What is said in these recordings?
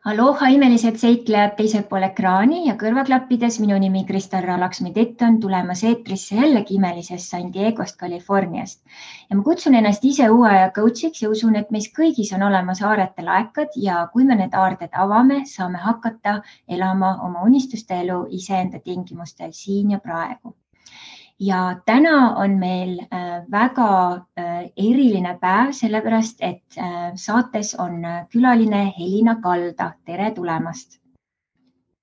Aloha imelised seiklejad teisel pool ekraani ja kõrvaklappides. Minu nimi Kristel Laksmi-Tett on tulemas eetrisse jällegi imelisest San Diegost, Californiast. Ja ma kutsun ennast ise uue aja coachiks ja usun, et meis kõigis on olemas aarete laekad ja kui me need aarded avame, saame hakata elama oma unistuste elu iseenda tingimustel siin ja praegu. Ja täna on meil väga eriline päev, sellepärast et saates on külaline Helina Kalda. Tere tulemast!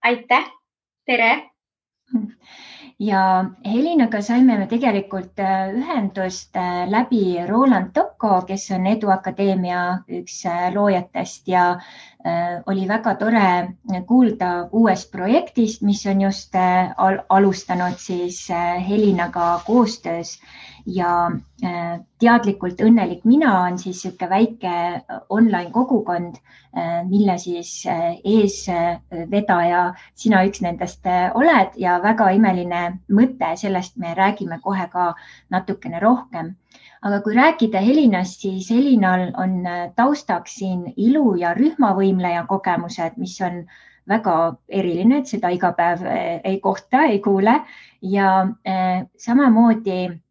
Aitäh! Tere! Ja Helinaga saime me tegelikult ühendust läbi Roland Tocco, kes on Eduakadeemia üks loojatest ja oli väga tore kuulda uuest projektist, mis on just alustanud siis Helinaga koostöös ja teadlikult õnnelik mina on siis siuke väike online kogukond, mille siis eesvedaja sina üks nendest oled ja väga imeline mõte, sellest me räägime kohe ka natukene rohkem. Aga kui rääkida Helinast, siis Helinal on taustaks siin ilu- ja rühmavõimleja kogemused, mis on väga eriline, et seda iga päev ei kohta, ei kuule ja samamoodi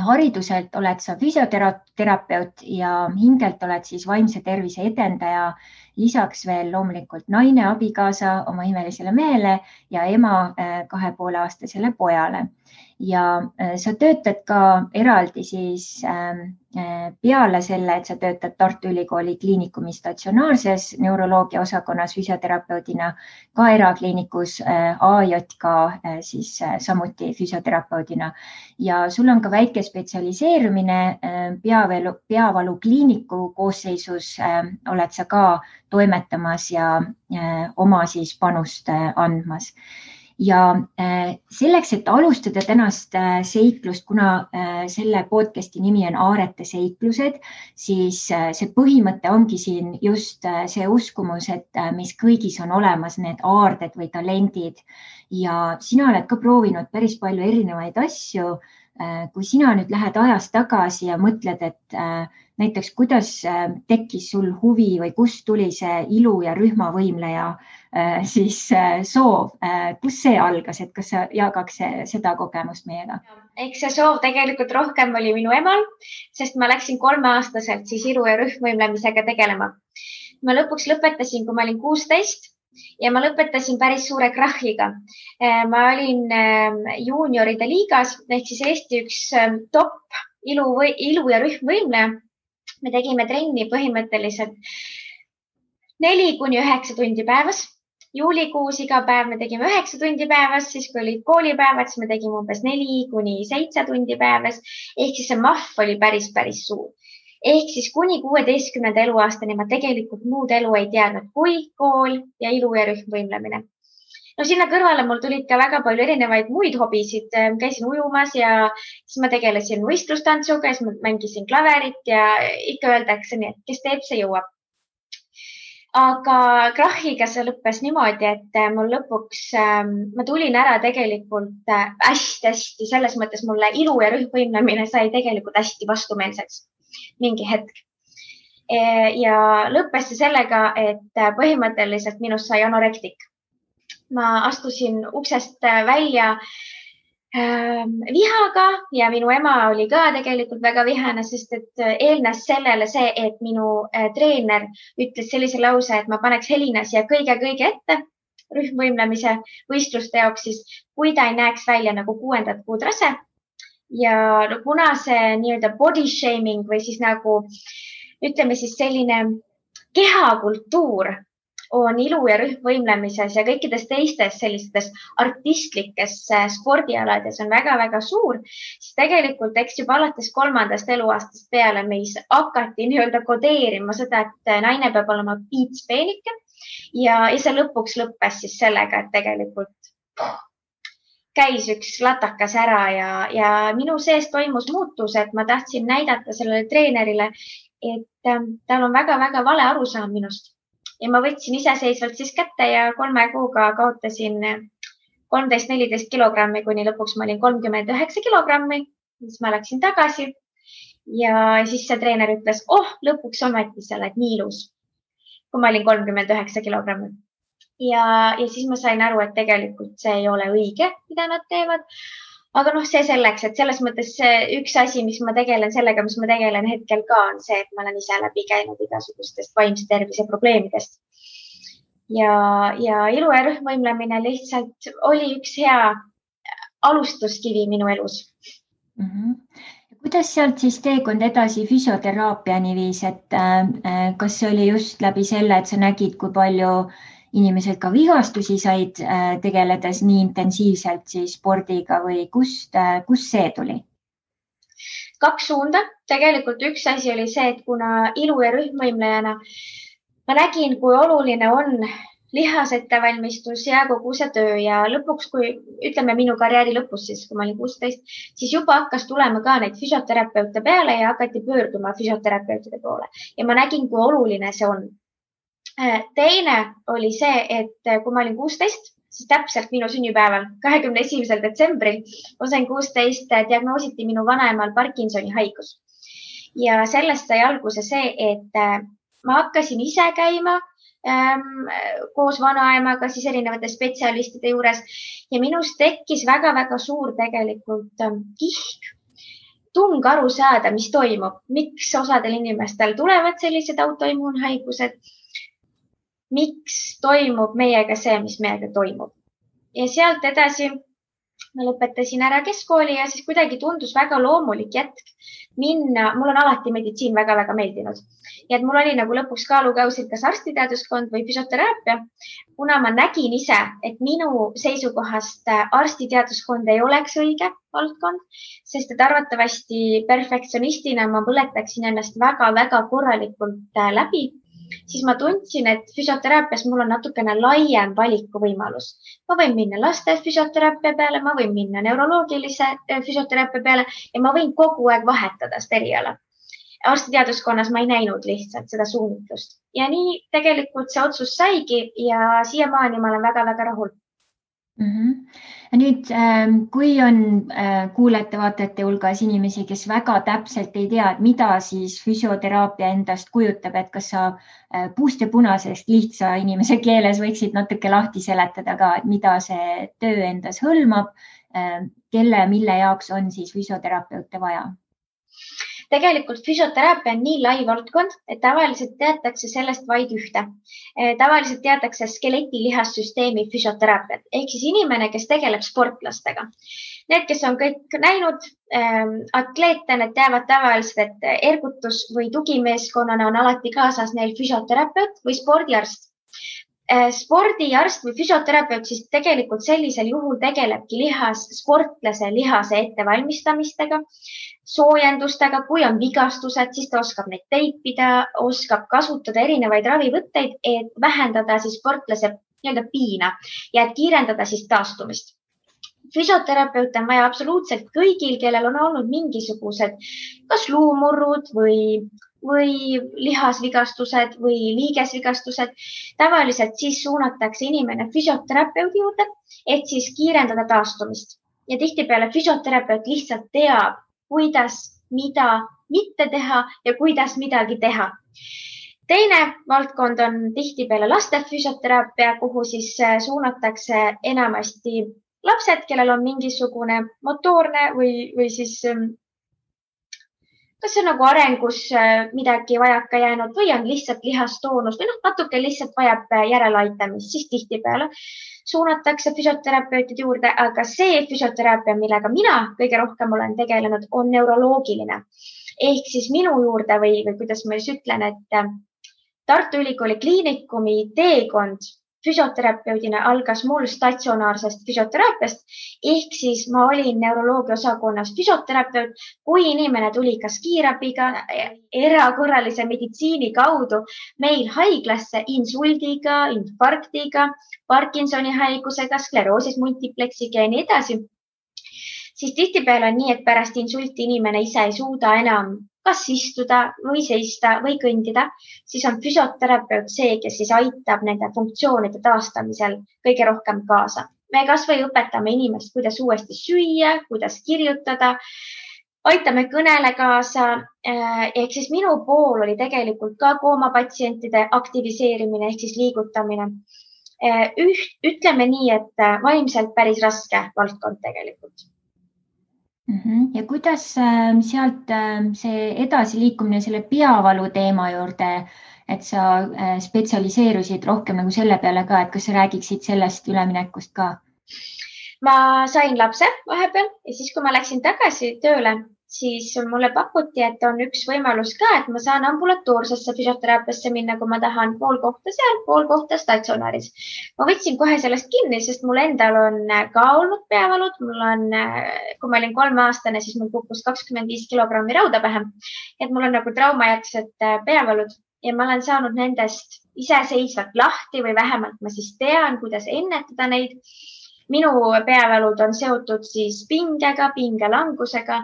hariduselt oled sa füsioterapeut ja hingelt oled siis vaimse tervise edendaja, lisaks veel loomulikult naine, abikaasa oma imelisele mehele ja ema 2,5-aastasele pojale. Ja sa töötad ka eraldi siis peale selle, et sa töötad Tartu Ülikooli kliinikumi statsionaarses neuroloogia osakonnas füsioterapeudina, ka erakliinikus AJK siis samuti füsioterapeudina. Ja sul on ka väike spetsialiseerumine peavalu kliiniku koosseisus oled sa ka toimetamas ja oma siis panust andmas. Ja selleks, et alustada tänast seiklust, kuna selle podcasti nimi on Aarete seiklused, siis see põhimõte ongi siin just see uskumus, et mis kõigis on olemas need aarded või talendid ja sina oled ka proovinud päris palju erinevaid asju. Kui sina nüüd lähed ajas tagasi ja mõtled, et näiteks kuidas tekkis sul huvi või kust tuli see ilu- ja rühmavõimleja siis soov, kus see algas, et kas sa jagaks seda kogemust meiega? Eks see soov tegelikult rohkem oli minu emal, sest ma läksin 3-aastaselt siis ilu- ja rühmvõimlemisega tegelema. Ma lõpuks lõpetasin, kui ma olin 16 ja ma lõpetasin päris suure krahhiga. Ma olin juunioride liigas ehk siis Eesti üks top ilu- ja rühmvõimleja. Me tegime trenni põhimõtteliselt 4-9 tundi päevas. Juulikuus iga päev me tegime 9 tundi päevas, siis kui olid koolipäevad, siis me tegime umbes 4-7 tundi päevas. Ehk siis see mahv oli päris suur. Ehk siis kuni 16. eluaastani ma tegelikult muud elu ei teadnud kui kool ja ilu- ja rühmvõimlemine. No sinna kõrvale mul tulid ka väga palju erinevaid muid hobisid. Käisin ujumas ja siis ma tegelesin võistlustantsuga, siis ma mängisin klaverit ja ikka öeldakse nii, et kes teeb, see jõuab. Aga krahhiga see lõppes niimoodi, et mul lõpuks, ma tulin ära tegelikult hästi, selles mõttes mulle ilu- ja rühmvõimlemine sai tegelikult hästi vastumeelseks mingi hetk. Ja lõppes see sellega, et põhimõtteliselt minust sai anorektik. Ma astusin uksest välja vihaga ja minu ema oli ka tegelikult väga vihane, sest et eelnes sellele see, et minu treener ütles sellise lause, et ma paneks Helina siia kõige ette rühmvõimlemise võistluste jaoks, siis kui ta ei näeks välja nagu 6. kuud rase. Ja kuna see nii-öelda body shaming või siis nagu ütleme siis selline kehakultuur on ilu- ja rühmvõimlemises ja kõikides teistes sellistes artistlikes spordialades on väga suur, siis tegelikult eks juba alates 3. eluaastast peale meis hakati nii-öelda kodeerima seda, et naine peab olema piitspeenike ja see lõpuks lõppes siis sellega, et tegelikult käis üks latakas ära ja minu sees toimus muutus, et ma tahtsin näidata sellele treenerile, et tal on väga vale arusaam minust. Ja ma võtsin iseseisvalt siis kätte ja 3 kuuga kaotasin 13-14 kilogrammi, kuni lõpuks ma olin 39 kilogrammi. Siis ma läksin tagasi ja siis see treener ütles, lõpuks ometi sa oled nii ilus. kui ma olin 39 kilogrammi. Ja siis ma sain aru, et tegelikult see ei ole õige, mida nad teevad. Aga see selleks, et selles mõttes üks asi, mis ma tegelen hetkel ka, on see, et ma olen ise läbi käinud igasugustest vaimse tervise probleemidest. Ja ilu ja rühmvõimlemine lihtsalt oli üks hea alustuskivi minu elus. Kuidas sealt siis teekond edasi füsioteraapiani viis, et kas see oli just läbi selle, et sa nägid, kui palju inimesed ka vigastusi said tegeledes nii intensiivselt siis spordiga või kust see tuli? 2 suunda. Tegelikult üks asi oli see, et kuna ilu ja rühmvõimlejana ma nägin, kui oluline on lihasettevalmistus ja kogu see töö ja lõpuks, kui ütleme minu karjääri lõpus, siis kui ma olin 16, siis juba hakkas tulema ka neid füsioterapeute peale ja hakati pöörduma füsioterapeutide poole ja ma nägin, kui oluline see on. Teine oli see, et kui ma olin 16, siis täpselt minu sünnipäeval, 21. detsembril, ma sain 16, diagnoositi minu vanaemal Parkinsoni haigus. Ja sellest sai alguse see, et ma hakkasin ise käima koos vanaemaga siis erinevate spetsialistide juures ja minust tekkis väga-väga suur tegelikult kihk, tung aru saada, mis toimub, miks osadel inimestel tulevad sellised autoimmuunhaigused, miks toimub meiega see, mis meiega toimub. Ja sealt edasi ma lõpetasin ära keskkooli ja siis kuidagi tundus väga loomulik jätk minna. Mul on alati meditsiin väga-väga meeldinud. Ja et mul oli nagu lõpuks kaalukausil kas arstiteaduskond või füsioteraapia. Kuna ma nägin ise, et minu seisukohast arstiteaduskond ei oleks õige valdkond, sest et arvatavasti perfektsionistina ma põletaksin ennast väga-väga korralikult läbi, siis ma tundsin, et füsioteraapias mul on natukene laiem valikuvõimalus. Ma võin minna laste füsioteraapia peale, ma võin minna neuroloogilise füsioteraapia peale ja ma võin kogu aeg vahetada seda eriala. Arstiteaduskonnas ma ei näinud lihtsalt seda suunitlust. Ja nii tegelikult see otsus saigi ja siiamaani ma olen väga-väga rahul. Nüüd, kui on kuulajate-vaatajate hulgas inimesi, kes väga täpselt ei tea, et mida siis füsioteraapia endast kujutab, et kas sa puust ja punasest lihtsa inimese keeles võiksid natuke lahti seletada ka, et mida see töö endas hõlmab, mille jaoks on siis füsioterapeute vaja? Tegelikult füsioteraapia on nii lai valdkond, et tavaliselt teatakse sellest vaid ühte. Tavaliselt teatakse skeletilihasssüsteemi füsioteraapiat, ehk siis inimene, kes tegeleb sportlastega. Need, kes on kõik näinud atleete, need teavad tavaliselt, et ergutus või tugimeeskonnana on alati kaasas neil füsioterapeut või spordiarst. Spordiarst või füsioterapeut siis tegelikult sellisel juhul tegelebki sportlase lihase ettevalmistamistega, soojendustega, kui on vigastused, siis ta oskab neid teipida, oskab kasutada erinevaid ravivõtteid, et vähendada siis sportlase piina ja et kiirendada siis taastumist. Füsioterapeut on vaja absoluutselt kõigil, kellel on olnud mingisugused kas luumurrud või lihasvigastused või liigesvigastused. Tavaliselt siis suunatakse inimene füsioterapeudi juurde, et siis kiirendada taastumist. Ja tihtipeale füsioterapeut lihtsalt teab, kuidas, mida mitte teha ja kuidas midagi teha. Teine valdkond on tihtipeale laste füsioteraapia, kuhu siis suunatakse enamasti lapsed, kellel on mingisugune motoorne või siis kas see on nagu arengus midagi vajaka jäänud või on lihtsalt lihastoonus või natuke lihtsalt vajab järeleaitamist, siis tihtipeale suunatakse füsioterapeutide juurde, aga see füsioteraapia, millega mina kõige rohkem olen tegelenud, on neuroloogiline. Ehk siis minu juurde või kuidas ma siis ütlen, et Tartu Ülikooli Kliinikumi teekond füsioterapeudina algas mul statsionaarsest füsioteraapiast, ehk siis ma olin neuroloogia osakonnas füsioterapeut, kui inimene tuli kas kiirabiga, erakorralise meditsiini kaudu meil haiglasse insuldiga, infarktiga, Parkinsoni haigusega, skleroosis multipleksiga ja nii edasi, siis tihtipeale on nii, et pärast insulti inimene ise ei suuda enam kas istuda või seista või kõndida, siis on füsioterapeut see, kes siis aitab nende funktsioonide taastamisel kõige rohkem kaasa. Me kas või õpetame inimest, kuidas uuesti süüa, kuidas kirjutada, aitame kõnele kaasa. Ehk siis minu pool oli tegelikult ka koomapatsientide aktiviseerimine ehk siis liigutamine. Ütleme nii, et vaimselt päris raske valdkond tegelikult. Ja kuidas sealt see edasiliikumine selle peavalu teema juurde, et sa spetsialiseerusid rohkem nagu selle peale ka, et kas sa räägiksid sellest üleminekust ka? Ma sain lapse vahepeal ja siis, kui ma läksin tagasi tööle, siis mulle pakuti, et on üks võimalus ka, et ma saan ambulatoorsesse füsioteraapiasse minna, kui ma tahan, pool kohta seal, pool kohta statsionaaris. Ma võtsin kohe sellest kinni, sest mul endal on ka olnud peavalud. Mul on, kui ma olin 3-aastane, siis mul kukkus 25 kilogrammi rauda pähe. Et mul on nagu traumajärgsed peavalud ja ma olen saanud nendest iseseisvalt lahti või vähemalt ma siis tean, kuidas ennetada neid. Minu peavalud on seotud siis pingega, pingelangusega.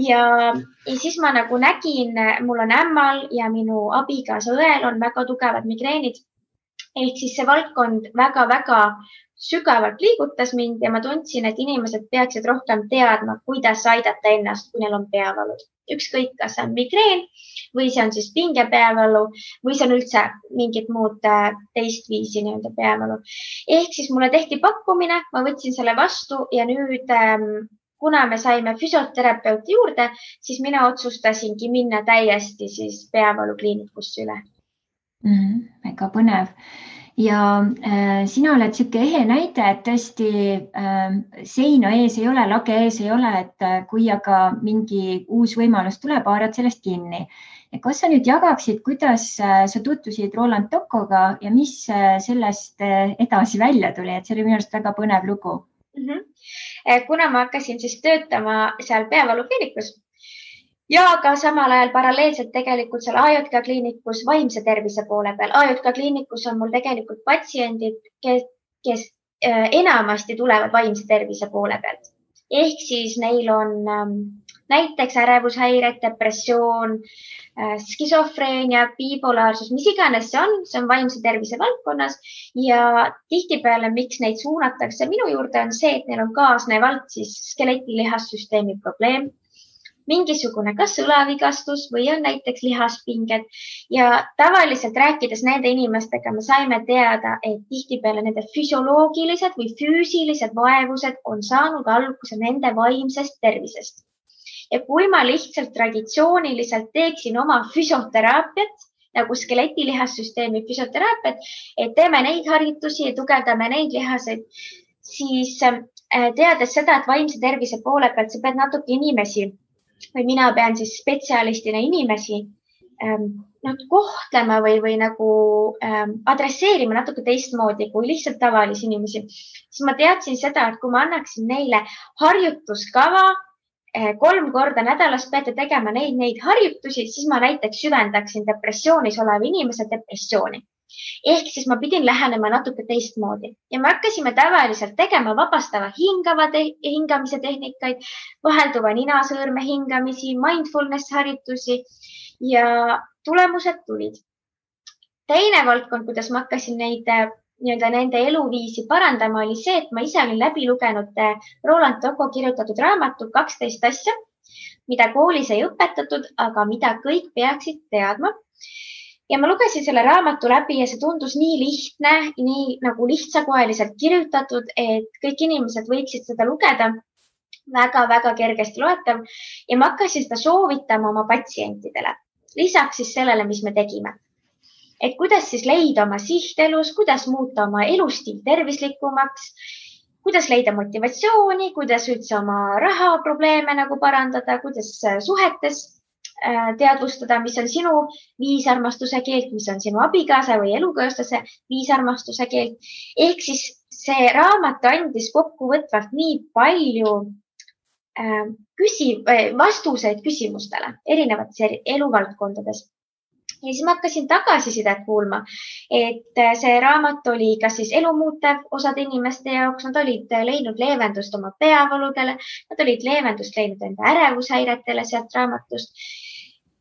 Ja siis ma nagu nägin, mul on ämmal ja minu abikaasa õel on väga tugevad migreenid. Ehk siis see valdkond väga-väga sügavalt liigutas mind ja ma tundsin, et inimesed peaksid rohkem teadma, kuidas aidata ennast, kui neil on peavalud. Ükskõik, kas see on migreen või see on siis pingepeavalu või see on üldse mingit muud teist viisi nii-öelda peavalu. Ehk siis mulle tehti pakkumine, ma võtsin selle vastu ja nüüd kuna me saime füsioterapeuti juurde, siis mina otsustasingi minna täiesti siis peavalukliinikusse üle. Väga põnev. Ja sina oled siuke ehe näide, et tõesti seina ees ei ole, lage ees ei ole, et kui aga mingi uus võimalus tuleb, haarad sellest kinni. Ja kas sa nüüd jagaksid, kuidas sa tutvusid Roland Tokoga ja mis sellest edasi välja tuli, et see oli minu arust väga põnev lugu. Kuna ma hakkasin siis töötama seal peavalukliinikus ja ka samal ajal paralleelselt tegelikult seal AJK kliinikus vaimse tervise poole peal. AJK kliinikus on mul tegelikult patsiendid, kes enamasti tulevad vaimse tervise poole pealt. Ehk siis neil on näiteks ärevushäired, depressioon, skisofreenia, bipolaarsus, mis iganes see on vaimse tervise valdkonnas ja tihtipeale, miks neid suunatakse minu juurde, on see, et neil on kaasnevalt siis skeletilihasssüsteemi probleem, mingisugune kas õlavigastus või on näiteks lihaspinged ja tavaliselt rääkides nende inimestega me saime teada, et tihtipeale nende füsioloogilised või füüsilised vaevused on saanud alguse nende vaimsest tervisest. Ja kui ma lihtsalt traditsiooniliselt teeksin oma füsioteraapiat, nagu skeletilihasssüsteemi füsioteraapiat, et teeme neid harjutusi ja tugevdame neid lihaseid, siis teades seda, et vaimse tervise poole pealt sa pead natuke inimesi või mina pean siis spetsialistina inimesi kohtlema või nagu adresseerima natuke teistmoodi kui lihtsalt tavalisi inimesi, siis ma teadsin seda, et kui ma annaksin neile harjutuskava, 3 korda nädalas peate tegema neid harjutusi, siis ma näiteks süvendaksin depressioonis oleva inimese depressiooni. Ehk siis ma pidin lähenema natuke teistmoodi ja me hakkasime tavaliselt tegema vabastava hingamise tehnikaid, vahelduva ninasõõrme hingamisi, mindfulness harjutusi ja tulemused tulid. Teine valdkond, kuidas ma hakkasin nende eluviisi parandama, oli see, et ma ise olin läbi lugenud Roland Toko kirjutatud raamatu 12 asja, mida koolis ei õpetatud, aga mida kõik peaksid teadma. Ja ma lugesin selle raamatu läbi ja see tundus nii lihtne, nii nagu lihtsakoeliselt kirjutatud, et kõik inimesed võiksid seda lugeda. Väga-väga kergesti loetav ja ma hakkasin seda soovitama oma patsientidele. Lisaks siis sellele, mis me tegime. Et kuidas siis leida oma sihtelus, kuidas muuta oma elustiil tervislikumaks, kuidas leida motivatsiooni, kuidas üldse oma rahaprobleeme nagu parandada, kuidas suhetes teadvustada, mis on sinu viisarmastuse keelt, mis on sinu abikaasa või elukaaslase viisarmastuse keelt. Ehk siis see raamat andis kokkuvõtvalt nii palju vastuseid küsimustele erinevates eluvaldkondades. Ja siis ma hakkasin tagasisidet kuulma, et see raamat oli kas siis elumuutev osad inimeste jaoks, nad olid leidnud leevendust oma peavaludele, nad olid leevendust leidnud enda ärevushäiretele sealt raamatust.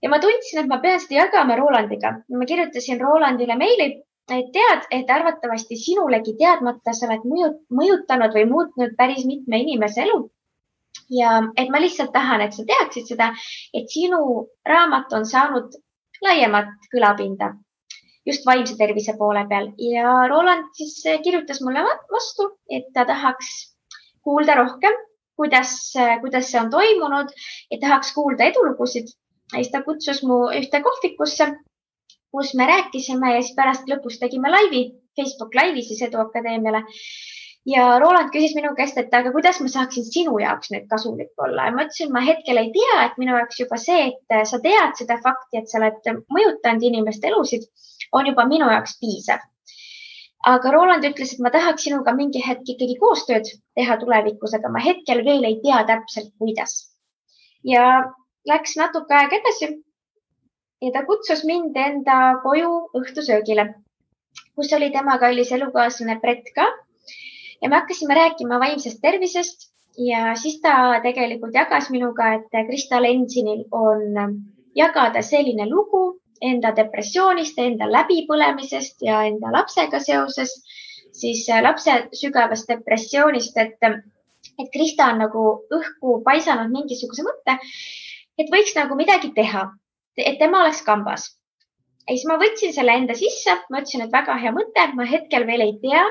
Ja ma tundsin, et ma pean seda jagama Rolandiga. Ma kirjutasin Rolandile meili, et tead, et arvatavasti sinulegi teadmata sa oled mõjutanud või muutnud päris mitme inimese elu. ja et ma lihtsalt tahan, et sa teaksid seda, et sinu raamat on saanud laiemat kõlapinda just vaimse tervise poole peal ja Roland siis kirjutas mulle vastu, et ta tahaks kuulda rohkem, kuidas see on toimunud ja tahaks kuulda edulugusid. Ja siis ta kutsus mu ühte kohvikusse, kus me rääkisime ja siis pärast lõpus tegime Facebook laivi siis Eduakadeemiale. Ja Roland küsis minu käest, et aga kuidas ma saaksin sinu jaoks nüüd kasulik olla. Ja ma ütlesin, ma hetkel ei tea, et minu jaoks juba see, et sa tead seda fakti, et sa oled mõjutanud inimeste elusid, on juba minu jaoks piisav. Aga Roland ütles, et ma tahaks sinuga mingi hetk ikkagi koostööd teha tulevikus, aga ma hetkel veel ei tea täpselt, kuidas. Ja läks natuke aeg edasi ja ta kutsus mind enda koju õhtusöögile, kus oli tema kallis elukaaslane Brett ka. Ja me hakkasime rääkima vaimsest tervisest ja siis ta tegelikult jagas minuga, et Krista Lensinil on jagada selline lugu enda depressioonist, enda läbipõlemisest ja enda lapsega seoses, siis lapse sügavast depressioonist, et Krista on nagu õhku paisanud mingisuguse mõtte, et võiks nagu midagi teha, et tema oleks kambas. Ja siis ma võtsin selle enda sisse, ma ütlesin, et väga hea mõte, ma hetkel veel ei tea,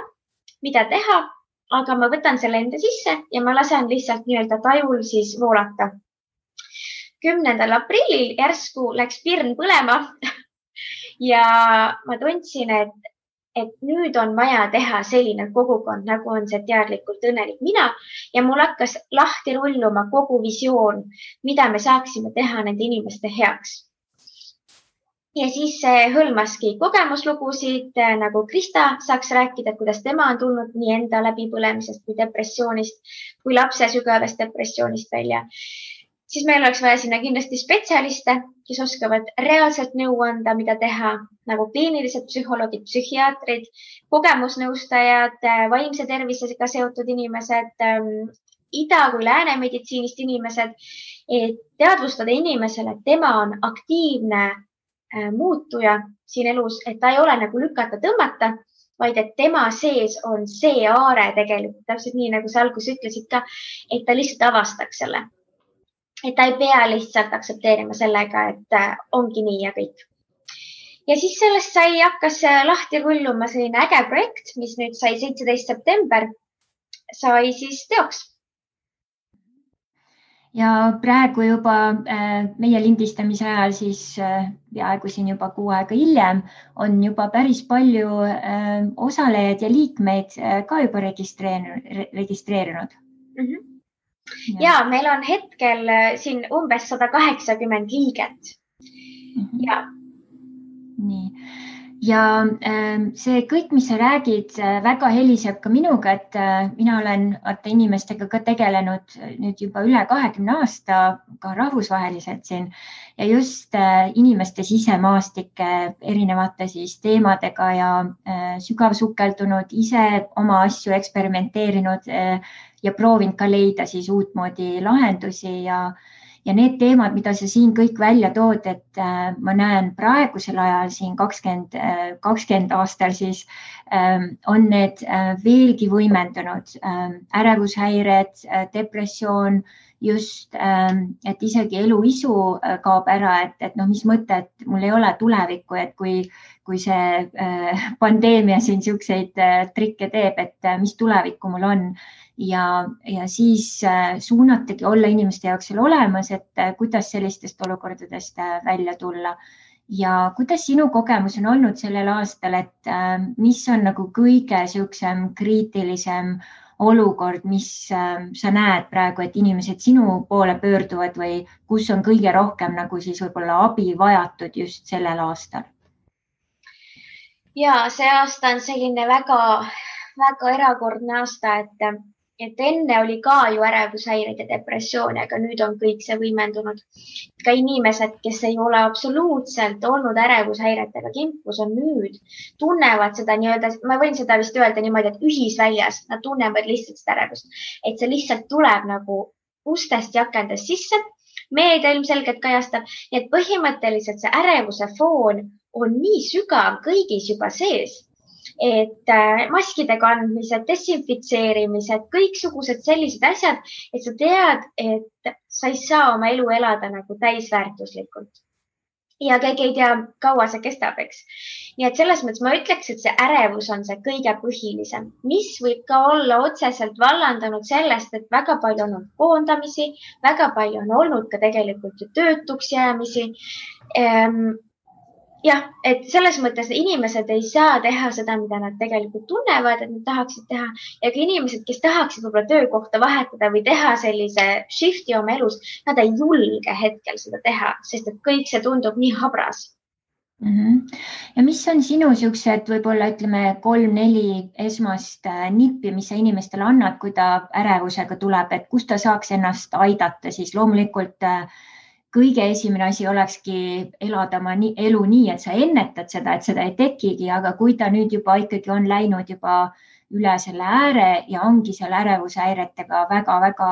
mida teha, aga ma võtan selle enda sisse ja ma lasen lihtsalt nii-öelda tajul siis voolata. 10. aprillil järsku läks pirn põlema ja ma tundsin, et nüüd on vaja teha selline kogukond, nagu on see teadlikult õnnelik mina ja mul hakkas lahti rulluma kogu visioon, mida me saaksime teha nende inimeste heaks. Ja siis hõlmaski kogemuslugusid, nagu Krista saaks rääkida, kuidas tema on tulnud nii enda läbipõlemisest kui depressioonist, kui lapse sügavast depressioonist välja. Siis meil oleks vaja sinna kindlasti spetsialiste, kes oskavad reaalselt nõu anda, mida teha, nagu kliinilised psühholoogid, psühhiaatrid, kogemusnõustajad, vaimse tervisega seotud inimesed, ida- kui lääne meditsiinist inimesed, et teadvustada inimesele, et tema on aktiivne muutuja siin elus, et ta ei ole nagu lükata tõmmata, vaid et tema sees on see aare tegelikult, täpselt nii, nagu sa alguses ütlesid ka, et ta lihtsalt avastaks selle. Et ta ei pea lihtsalt aksepteerima sellega, et ongi nii ja kõik. Ja siis sellest hakkas lahti rulluma selline äge projekt, mis nüüd sai 17. september, sai siis teoks. Ja praegu juba meie lindistamise ajal siis peaaegu siin juba 6 aega hiljem on juba päris palju osalejaid ja liikmeid ka juba registreerinud. Mm-hmm. Ja meil on hetkel siin umbes 180 liiget. Mm-hmm. Ja. Nii. Ja see kõik, mis sa räägid, väga heliseb ka minuga, et mina olen inimestega ka tegelenud nüüd juba üle 20 aasta ka rahvusvaheliselt siin ja just inimeste sisemaastike erinevate siis teemadega ja sügavsukeldunud, ise oma asju eksperimenteerinud ja proovinud ka leida siis uutmoodi lahendusi ja need teemad, mida sa siin kõik välja tood, et ma näen praegusel ajal siin 20 aastal siis on need veelgi võimendunud. Ärevushäired, depressioon, just, et isegi eluisu kaob ära, et mis mõte, et mul ei ole tulevikku, et kui see pandeemia siin siukseid trikke teeb, et mis tulevikku mul on. Ja siis suunatagi olla inimeste jaoks seal olemas, et kuidas sellistest olukordadest välja tulla. Ja kuidas sinu kogemus on olnud sellel aastal, et mis on nagu kõige siuksem kriitilisem olukord, mis sa näed praegu, et inimesed sinu poole pöörduvad või kus on kõige rohkem nagu siis võib-olla abi vajatud just sellel aastal? Ja see aasta on selline väga, väga erakordne aasta, et enne oli ka ju ärevushäired ja depressiooni, aga nüüd on kõik see võimendunud. Ka inimesed, kes ei ole absoluutselt olnud ärevushäiretega kimpus, on nüüd, tunnevad seda nii-öelda, ma võin seda vist öelda niimoodi, et ühisväljas, nad tunnevad lihtsalt seda ärevust, et see lihtsalt tuleb nagu ustest ja akendest sisse. Meedia ilmselgelt kajastab, et põhimõtteliselt see ärevuse foon on nii sügav kõigis juba sees, et maskide kandmised, desinfitseerimised, kõiksugused sellised asjad, et sa tead, et sa ei saa oma elu elada nagu täisväärtuslikult. Ja keegi ei tea, kaua see kestab, eks. Nii et selles mõttes ma ütleks, et see ärevus on see kõige põhilisem, mis võib ka olla otseselt vallandanud sellest, et väga palju on olnud koondamisi, väga palju on olnud ka tegelikult ju töötuks jäämisi. Jah, et selles mõttes inimesed ei saa teha seda, mida nad tegelikult tunnevad, et nad tahaksid teha. Ja ka inimesed, kes tahaksid võib-olla töökohta vahetada või teha sellise shifti oma elus, nad ei julge hetkel seda teha, sest et kõik see tundub nii habras. Ja mis on sinu siuksed võib-olla ütleme 3-4 esmast nippi, mis sa inimestele annad, kui ta ärevusega tuleb, et kus ta saaks ennast aidata, siis loomulikult kõige esimene asi olekski elada oma elu nii, et sa ennetad seda, et seda ei tekigi, aga kui ta nüüd juba ikkagi on läinud juba üle selle ääre ja ongi seal ärevushäiretega väga-väga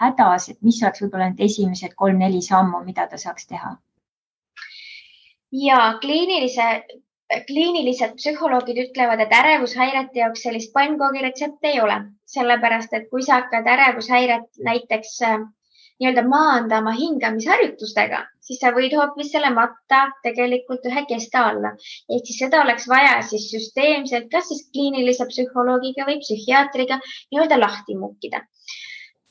hädas, et mis oleks võib-olla need esimesed 3-4 sammu, mida ta saaks teha? Ja kliinilised psühholoogid ütlevad, et ärevushäirete jaoks sellist pannkoogi retsepti ei ole, sellepärast et kui sa hakkad ärevushäiret näiteks nii-öelda maandama hingamisharjutustega, siis sa võid hoopis selle matta tegelikult ühe kesta alla. Ehk siis seda oleks vaja siis süsteemselt, kas siis kliinilise psühholoogiga või psühhiaatriga nii-öelda lahti mukkida.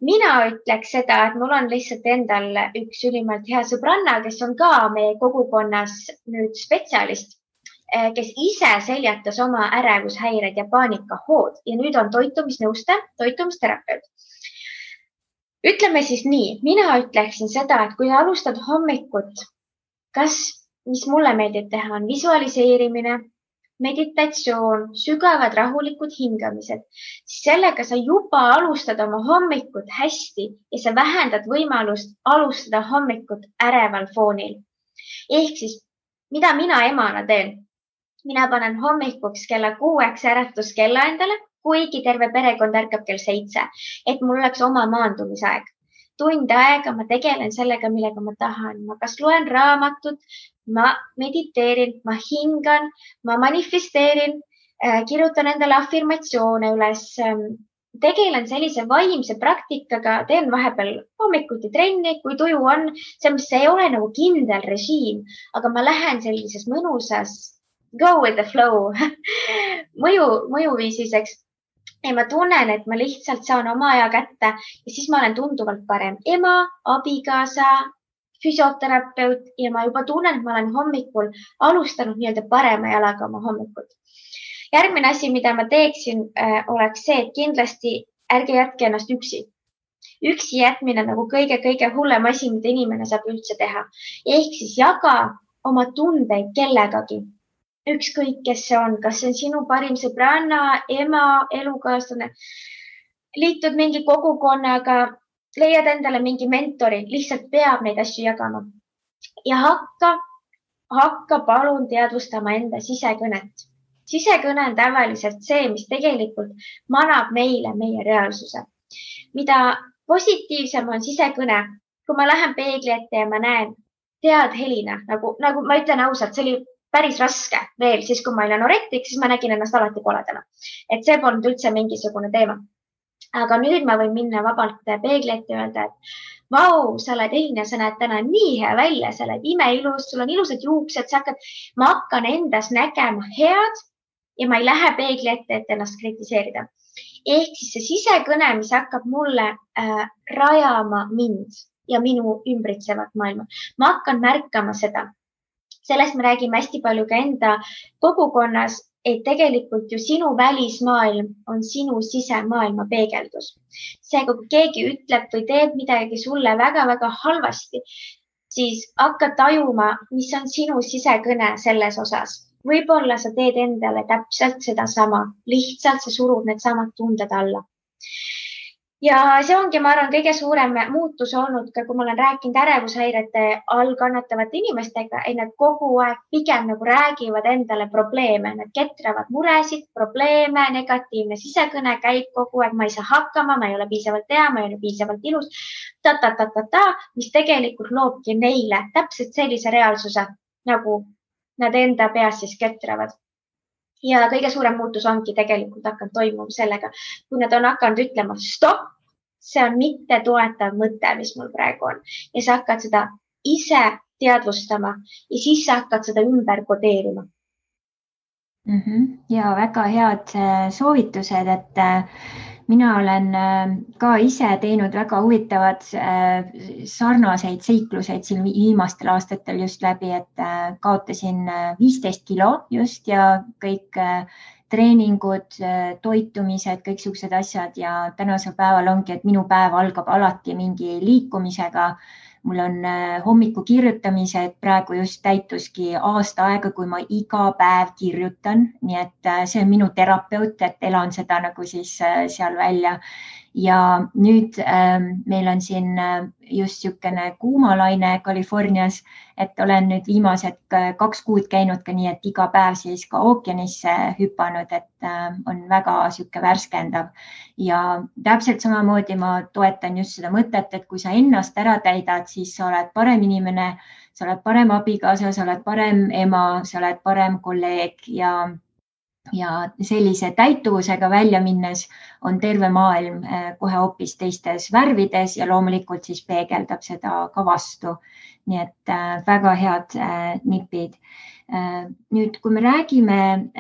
Mina ütleks seda, et mul on lihtsalt endal üks ülimalt hea sõbranna, kes on ka meie kogukonnas nüüd spetsialist, kes ise seljatas oma ärevushäired ja paanikahood ja nüüd on toitumisnõustaja, toitumisterapeut. Ütleme siis nii, mina ütleksin seda, et kui alustad hommikut, mis mulle meeldib teha, on visualiseerimine, meditatsioon, sügavad rahulikud hingamised, siis sellega sa juba alustad oma hommikut hästi ja sa vähendad võimalust alustada hommikut äreval foonil. Ehk siis, mida mina emana teen? Mina panen hommikuks kella 6 äratuskella endale, kuigi terve perekond ärkab kell 7, et mul oleks oma maandumisaeg. Tund aega ma tegelen sellega, millega ma tahan. Ma kas loen raamatut, ma mediteerin, ma hingan, ma manifesteerin, kirjutan endale afirmatsioone üles, tegelen sellise vaimse praktikaga, teen vahepeal hommikuti trenni, kui tuju on. See ei ole nagu kindel režiim, aga ma lähen sellises mõnusas go with the flow mõjuviisiseks. Ja ma tunnen, et ma lihtsalt saan oma aja kätte ja siis ma olen tunduvalt parem ema, abikaasa, füsioterapeut ja ma juba tunnen, et ma olen hommikul alustanud nii-öelda parema jalaga oma hommikut. Järgmine asi, mida ma teeksin, oleks see, et kindlasti ärge jätke ennast üksi. Üksi jätmine nagu kõige hullem asi, mida inimene saab üldse teha. Ehk siis jaga oma tundeid kellegagi. Ükskõik, kes see on, kas see on sinu parim sõbranna, ema, elukaaslane, liitud mingi kogukonnaga, leiad endale mingi mentori, lihtsalt peab neid asju jagama. Ja hakka palun teadvustama enda sisekõnet. Sisekõne on tavaliselt see, mis tegelikult manab meile meie reaalsuse. Mida positiivsem on sisekõne, kui ma lähen peegli ette ja ma näen, tead Helina, nagu ma ütlen ausalt, see oli päris raske veel, siis kui ma olin anorektik, siis ma nägin ennast alati koledana. Et see polnud üldse mingisugune teema. Aga nüüd ma võin minna vabalt peegli ette ja öelda, et vau, sa oled Helina, sa näed täna nii hea välja, sa oled imeilus, sul on ilusad juuksed, ma hakkan endas nägema head ja ma ei lähe peegli ette, et ennast kritiseerida. Ehk siis see sisekõne, mis hakkab mulle rajama mind ja minu ümbritsevat maailma. Ma hakkan märkama seda. Sellest me räägime hästi palju ka enda kogukonnas, et tegelikult ju sinu välismaailm on sinu sisemaailma peegeldus. Seega, kui keegi ütleb või teeb midagi sulle väga-väga halvasti, siis hakka tajuma, mis on sinu sisekõne selles osas. Võib-olla sa teed endale täpselt seda sama, lihtsalt sa surud need samad tunded alla. Ja see ongi, ma arvan, kõige suurem muutus olnud ka, kui ma olen rääkinud ärevushäirete all kannatavate inimestega, et nad kogu aeg pigem nagu räägivad endale probleeme, nad ketravad muresid, probleeme, negatiivne sisekõne käib kogu aeg, ma ei saa hakkama, ma ei ole piisavalt hea, ma ei ole piisavalt ilus, mis tegelikult loobki neile täpselt sellise reaalsuse, nagu nad enda peas siis ketravad. Ja kõige suurem muutus ongi tegelikult hakanud toimuma sellega, kui nad on hakanud ütlema stopp, see on mitte toetav mõte, mis mul praegu on. Ja sa hakkad seda ise teadvustama ja siis sa hakkad seda ümber kodeerima. Ja väga head soovitused, et mina olen ka ise teinud väga huvitavad sarnaseid seikluseid siin viimastel aastatel just läbi, et kaotasin 15 kilo just ja kõik treeningud, toitumised, kõik siuksed asjad ja tänasel päeval ongi, et minu päev algab alati mingi liikumisega. Mul on hommiku kirjutamised, praegu just täituski aasta aega, kui ma iga päev kirjutan, nii et see on minu terapeut, et elan seda nagu siis seal välja. Ja nüüd meil on siin just niisugune kuumalaine Californias, et olen nüüd viimased 2 kuud käinud ka nii, et iga päev siis ka ookeanisse hüpanud, et on väga niisugune värskendav. Ja täpselt samamoodi ma toetan just seda mõtet, et kui sa ennast ära täidad, siis sa oled parem inimene, sa oled parem abikaasa, sa oled parem ema, sa oled parem kolleeg ja sellise täituvusega välja minnes on terve maailm kohe hoopis teistes värvides ja loomulikult siis peegeldab seda ka vastu. Nii et väga head nipid. Nüüd, kui me räägime,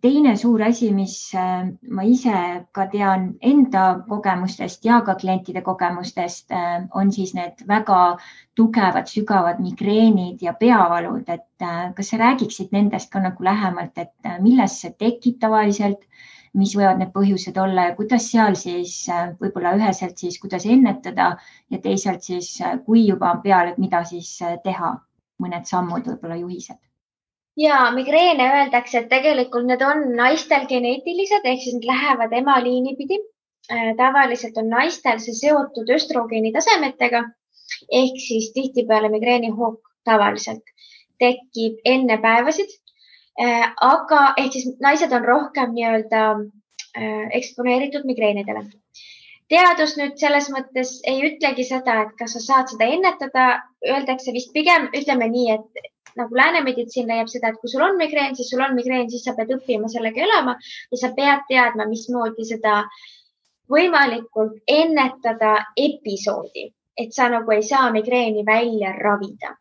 teine suur asi, mis ma ise ka tean enda kogemustest ja ka klientide kogemustest, on siis need väga tugevad, sügavad migreenid ja peavalud, et kas sa räägiksid nendest ka nagu lähemalt, et millest see tekib tavaliselt, mis võivad need põhjused olla ja kuidas seal siis võib-olla üheselt siis, kuidas ennetada ja teisalt siis, kui juba on peal, et mida siis teha, mõned sammud, võib-olla juhised. Ja migreene öeldakse, et tegelikult need on naistel geneetilised, ehk siis need lähevad emaliini pidi. Tavaliselt on naistel see seotud östrogeeni tasemetega, ehk siis tihtipeale migreenihoog tavaliselt tekib enne päevasid. Aga ehk siis naised on rohkem nii-öelda eksponeeritud migreenidele. Teadus nüüd selles mõttes ei ütlegi seda, et kas sa saad seda ennetada, öeldakse vist pigem, ütleme nii, et nagu läänemeditsiin leiab seda, et kui sul on migreen, siis sul on migreen, siis sa pead õppima sellega elama ja sa pead teadma, mismoodi seda võimalikult ennetada episoodi, et sa nagu ei saa migreeni välja ravida.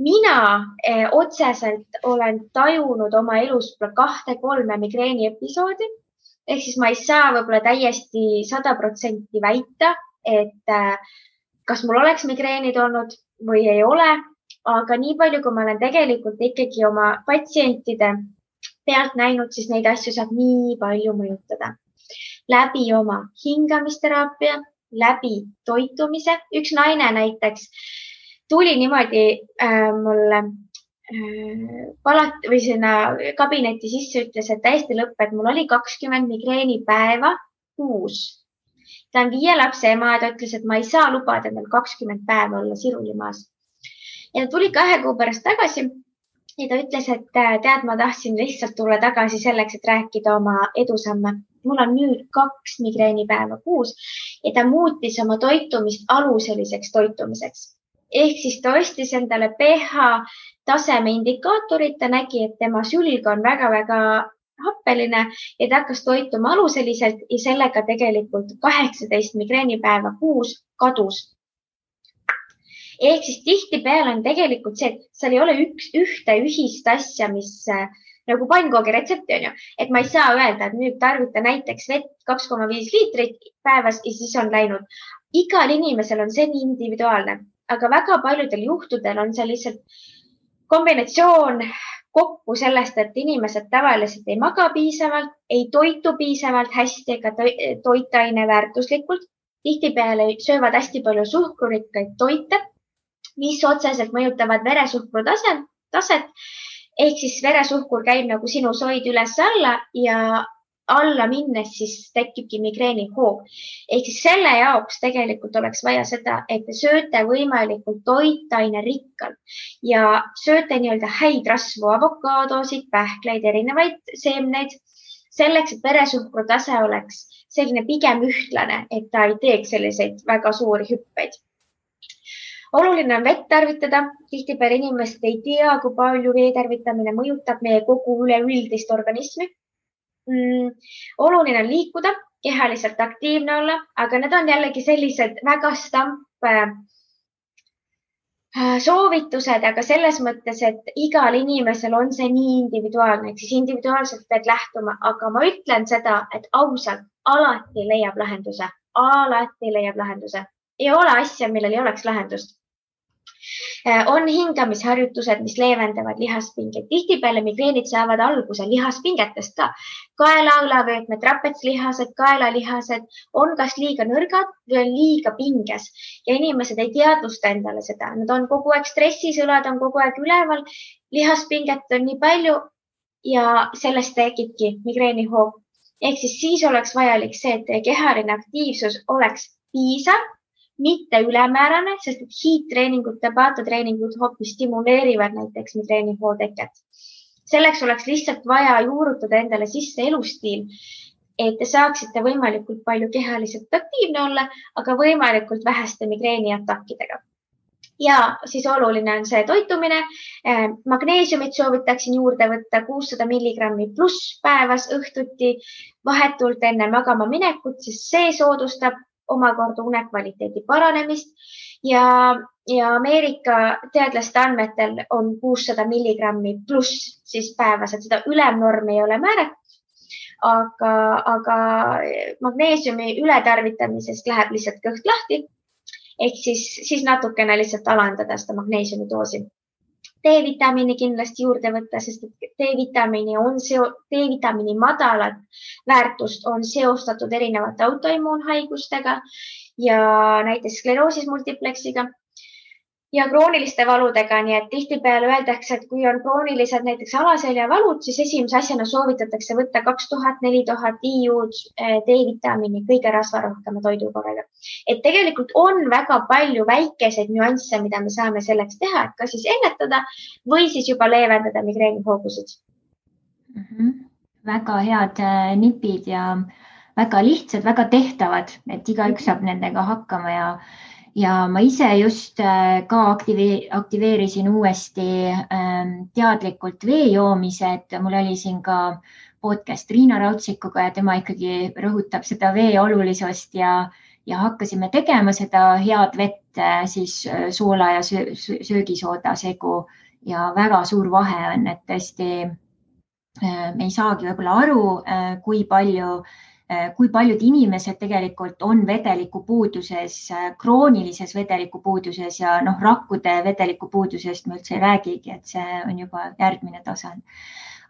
Mina otseselt olen tajunud oma elus 2-3 migreeni episoodi, ehk siis ma ei saa võib-olla täiesti 100% väita, et kas mul oleks migreenid olnud või ei ole, aga nii palju, kui ma olen tegelikult ikkagi oma patsientide pealt näinud, siis neid asju saab nii palju mõjutada. Läbi oma hingamisteraapia, läbi toitumise. Üks naine näiteks tuli niimoodi mulle või sinna kabinetti sisse, ütles, et täiesti lõpp, et mul oli 20 migreeni päeva kuus. Ta on 5 lapse ema ja ta ütles, et ma ei saa lubada endal 20 päeva olla sirulimaas. Ja ta tuli 2 kuu pärast tagasi ja ta ütles, et tead, ma tahtsin lihtsalt tulla tagasi selleks, et rääkida oma edusamme. Mul on nüüd 2 migreenipäeva kuus ja ta muutis oma toitumist aluseliseks toitumiseks. Ehk siis ta ostis endale pH taseme indikaatorit, ta nägi, et tema sülg on väga-väga happeline ja ta hakkas toituma aluseliselt ja sellega tegelikult 18 migreenipäeva kuus kadus. Ehk siis tihtipeale on tegelikult see, et seal ei ole ühte ühist asja, mis nagu pannkoogi retsepti on ju, et ma ei saa öelda, et nüüd tarvita näiteks vett 2,5 liitrit päevas ja siis on läinud. Igal inimesel on see nii individuaalne, aga väga paljudel juhtudel on see lihtsalt kombinatsioon kokku sellest, et inimesed tavaliselt ei maga piisavalt, ei toitu piisavalt hästi ega toitaine väärtuslikult. Tihtipeale söövad hästi palju suhkrurikkaid toite, mis otseselt mõjutavad veresuhkru taset. Ehk siis veresuhkur käib nagu sinus hoid üles alla ja alla minnes siis tekibki migreenihoog. Ehk siis selle jaoks tegelikult oleks vaja seda, et te sööte võimalikult toitaine rikkalt ja sööte nii-öelda häid rasvu, avokaadosid, pähkleid, erinevaid seemneid, selleks, et veresuhkru tase oleks selline pigem ühtlane, et ta ei teeks selliseid väga suuri hüppeid. oluline on vett tarvitada. Tihtipeale inimesed ei tea, kui palju vee tarvitamine mõjutab meie kogu üleüldist organismi. Oluline on liikuda, kehaliselt aktiivne olla, aga need on jällegi sellised väga soovitused, aga selles mõttes, et igal inimesel on see nii individuaalne, ehk siis individuaalselt pead lähtuma, aga ma ütlen seda, et ausalt alati leiab lahenduse, alati leiab lahenduse. Ei ole asja, millel ei oleks lahendust. On hingamisharjutused, mis leevendavad lihaspingeid. Tihtipeale migreenid saavad alguse lihaspingetest ka. Kaela-õlavöötmed, trapetslihased, kaelalihased on kas liiga nõrgad või on liiga pinges ja inimesed ei teadvusta endale seda. Nad on kogu aeg stressis, õlad on kogu aeg üleval, lihaspinget on nii palju ja sellest tekibki migreenihoog. Ehk siis oleks vajalik see, et teie kehaline aktiivsus oleks piisav, mitte ülemäärane, sest et hiidtreeningud, tabatatreeningud hoopis stimuleerivad näiteks migreenihoo teket. Selleks oleks lihtsalt vaja juurutada endale sisse elustiil, et te saaksite võimalikult palju kehaliselt aktiivne olla, aga võimalikult väheste migreeniatakkidega. Ja siis oluline on see toitumine. Magneesiumit soovitaksin juurde võtta 600 milligrammi pluss päevas õhtuti vahetult enne magama minekut, sest see soodustab omakorda unekvaliteedi paranemist ja Ameerika teadlaste andmetel on 600 milligrammi pluss siis päevas, et seda ülemnormi ei ole määratud, aga magneesiumi ületarvitamisest läheb lihtsalt kõht lahti, ehk siis natukene lihtsalt alandada seda magneesiumi doosi. D-vitamiini kindlasti juurde võtta, sest D-vitamiini madalat väärtust on seostatud erinevate autoimmuunhaigustega ja näiteks skleroosis multipleksiga ja krooniliste valudega. Nii et tihtipeale öeldakse, et kui on kroonilised näiteks alaseljavalud, siis esimese asjana soovitatakse võtta 2000-4000 IU-d D-vitamiini kõige rasvarohkema toidukorraga. Et tegelikult on väga palju väikeseid nüansse, mida me saame selleks teha, et kas siis ennetada või siis juba leevendada migreenihoogusid. Väga head nipid ja väga lihtsad, väga tehtavad, et igaüks saab nendega hakkama ja ma ise just ka aktiveerisin uuesti teadlikult vee joomise, et mul oli siin ka podcast Riina Raudsikuga ja tema ikkagi rõhutab seda vee olulisust ja hakkasime tegema seda head vett siis soola ja söögisooda segu ja väga suur vahe on, et tõesti me ei saagi võib-olla aru, kui paljud inimesed tegelikult on vedelikupuuduses, kroonilises vedelikupuuduses ja rakkude vedelikupuudusest me üldse ei räägigi, et see on juba järgmine tasand.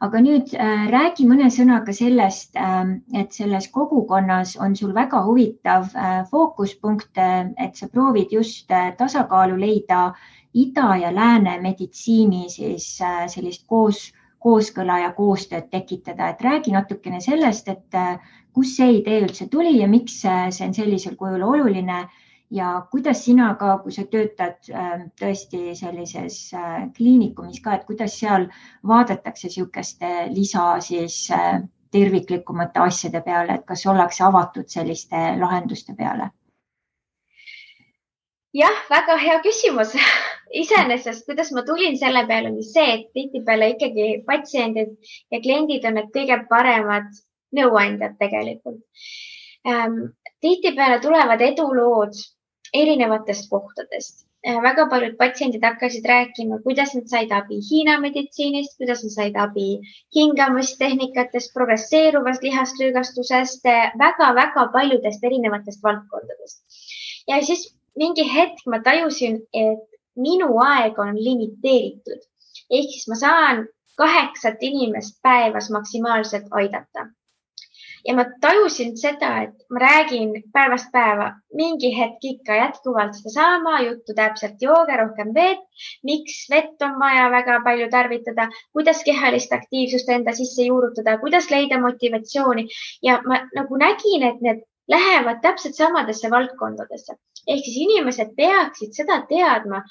Aga nüüd räägi mõne sõnaga sellest, et selles kogukonnas on sul väga huvitav fookuspunkt, et sa proovid just tasakaalu leida ida ja lääne meditsiini siis sellist kooskõla ja koostööd tekitada. Et räägi natukene sellest, et kus see idee üldse tuli ja miks see on sellisel kujul oluline ja kuidas sina ka, kui sa töötad tõesti sellises kliinikumis ka, et kuidas seal vaadatakse niisuguste lisa siis terviklikumate asjade peale, et kas ollakse avatud selliste lahenduste peale? Jah, väga hea küsimus. Iseenesest, kuidas ma tulin selle peale, oli see, et tihtipeale ikkagi patsiendid ja kliendid on need kõige paremad nõuandjad tegelikult. Tihtipeale tulevad edulood erinevatest kohtadest. Väga paljud patsiendid hakkasid rääkima, kuidas nad said abi Hiina meditsiinist, kuidas nad said abi hingamistehnikatest, progresseeruvast lihaslüügastusest, väga-väga paljudest erinevatest valdkondadest. Ja siis mingi hetk ma tajusin, et minu aeg on limiteeritud. Ehk siis ma saan 8 inimest päevas maksimaalselt aidata. Ja ma tajusin seda, et ma räägin päevast päeva mingi hetk ikka jätkuvalt seda sama juttu, täpselt jooge rohkem vett, miks vett on vaja väga palju tarvitada, kuidas kehalist aktiivsust enda sisse juurutada, kuidas leida motivatsiooni ja ma nagu nägin, et need lähevad täpselt samadesse valdkondadesse. Ehk siis inimesed peaksid seda teadma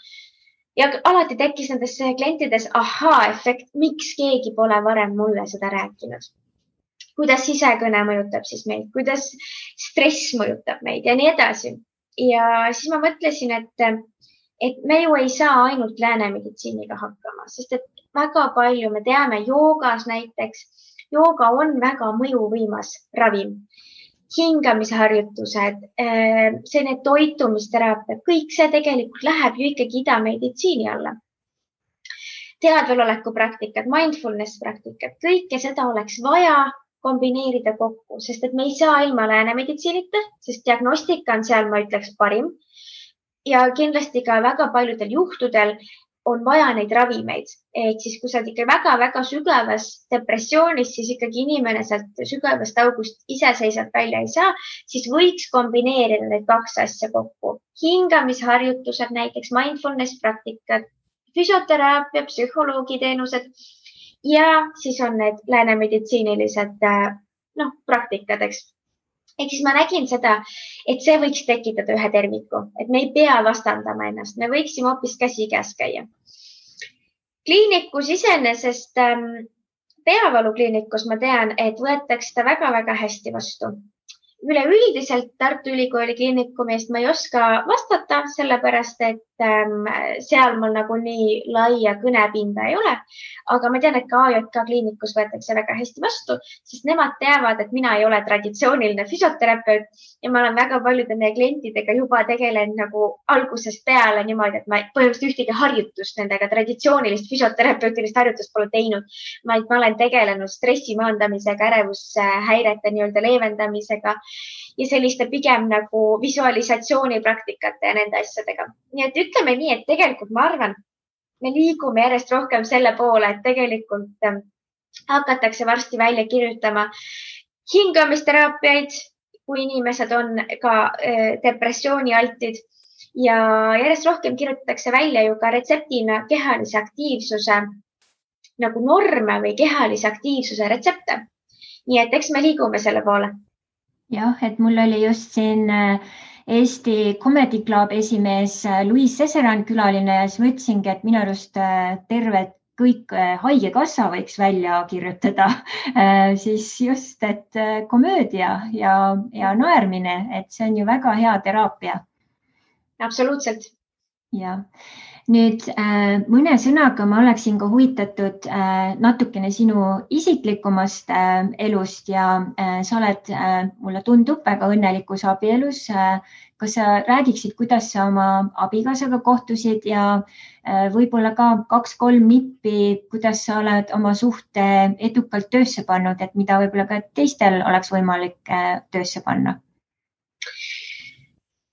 ja alati tekkis nendes klientides ahhaa-efekt, miks keegi pole varem mulle seda rääkinud. Kuidas sisekõne mõjutab siis meid, kuidas stress mõjutab meid ja nii edasi. Ja siis ma mõtlesin, et me ju ei saa ainult läänemeditsiiniga hakkama, sest et väga palju me teame joogas näiteks, jooga on väga mõjuvõimas ravim. Hingamisharjutused, selline toitumisteraapia, kõik see tegelikult läheb ju ikkagi idameditsiini alla. Teadveloleku praktikad, mindfulness praktikad, kõike seda oleks vaja kombineerida kokku, sest et me ei saa ilma läänemeditsiinita, sest diagnostika on seal, ma ütleks, parim. Ja kindlasti ka väga paljudel juhtudel on vaja neid ravimeid. Ehk siis, kui sa oled ikka väga-väga sügavas depressioonis, siis ikkagi inimene sealt sügavast august iseseisvalt välja ei saa, siis võiks kombineerida need kaks asja kokku. Hingamisharjutused, näiteks mindfulness praktikad, füsioteraapia, psühholoogiteenused ja siis on need läänemeditsiinilised praktikad, eks. Ehk siis ma nägin seda, et see võiks tekitada ühe terviku, et me ei pea vastandama ennast, me võiksime hoopis käsikäes käia. Kliinikus iseenesest, peavalukliinikus ma tean, et võetakse seda väga-väga hästi vastu. Üleüldiselt Tartu Ülikooli kliinikumist ma ei oska vastata, sellepärast et seal mul nagu nii laia kõnepinda ei ole. Aga ma tean, et ka AJK kliinikus võetakse väga hästi vastu, sest nemad teavad, et mina ei ole traditsiooniline füsioterapeut ja ma olen väga paljude meie klientidega juba tegelen nagu algusest peale niimoodi, et ma põhimõtteliselt ühtegi harjutust nendega, traditsioonilist füsioterapeutilist harjutust pole teinud, vaid ma olen tegelenud stressi maandamisega, ärevushäirete nii-öelda leevendamisega ja selliste pigem nagu visualisatsioonipraktikate ja nende asjadega. Nii et ütleme nii, et tegelikult ma arvan, me liigume järjest rohkem selle poole, et tegelikult hakatakse varsti välja kirjutama hingamisteraapiaid, kui inimesed on ka depressioonialtid ja järjest rohkem kirjutatakse välja ju ka retseptina kehalise aktiivsuse nagu norme või kehalise aktiivsuse retsepte. Nii et eks me liigume selle poole. Jah, et mul oli just siin Eesti Comedy Club esimees Louise Seseran külaline ja siis mõtlesingi, et minu arust terved kõik haigekassa võiks välja kirjutada siis just, et komöödia ja naermine, et see on ju väga hea teraapia. Absoluutselt. Ja. Nüüd mõne sõnaga ma oleksin ka huvitatud natukene sinu isiklikumast elust ja sa oled, mulle tundub, väga õnnelikus abielus. Kas sa räägiksid, kuidas sa oma abikaasaga kohtusid ja võib-olla ka 2-3 nippi, kuidas sa oled oma suhte edukalt töösse pannud, et mida võib-olla ka teistel oleks võimalik töösse panna?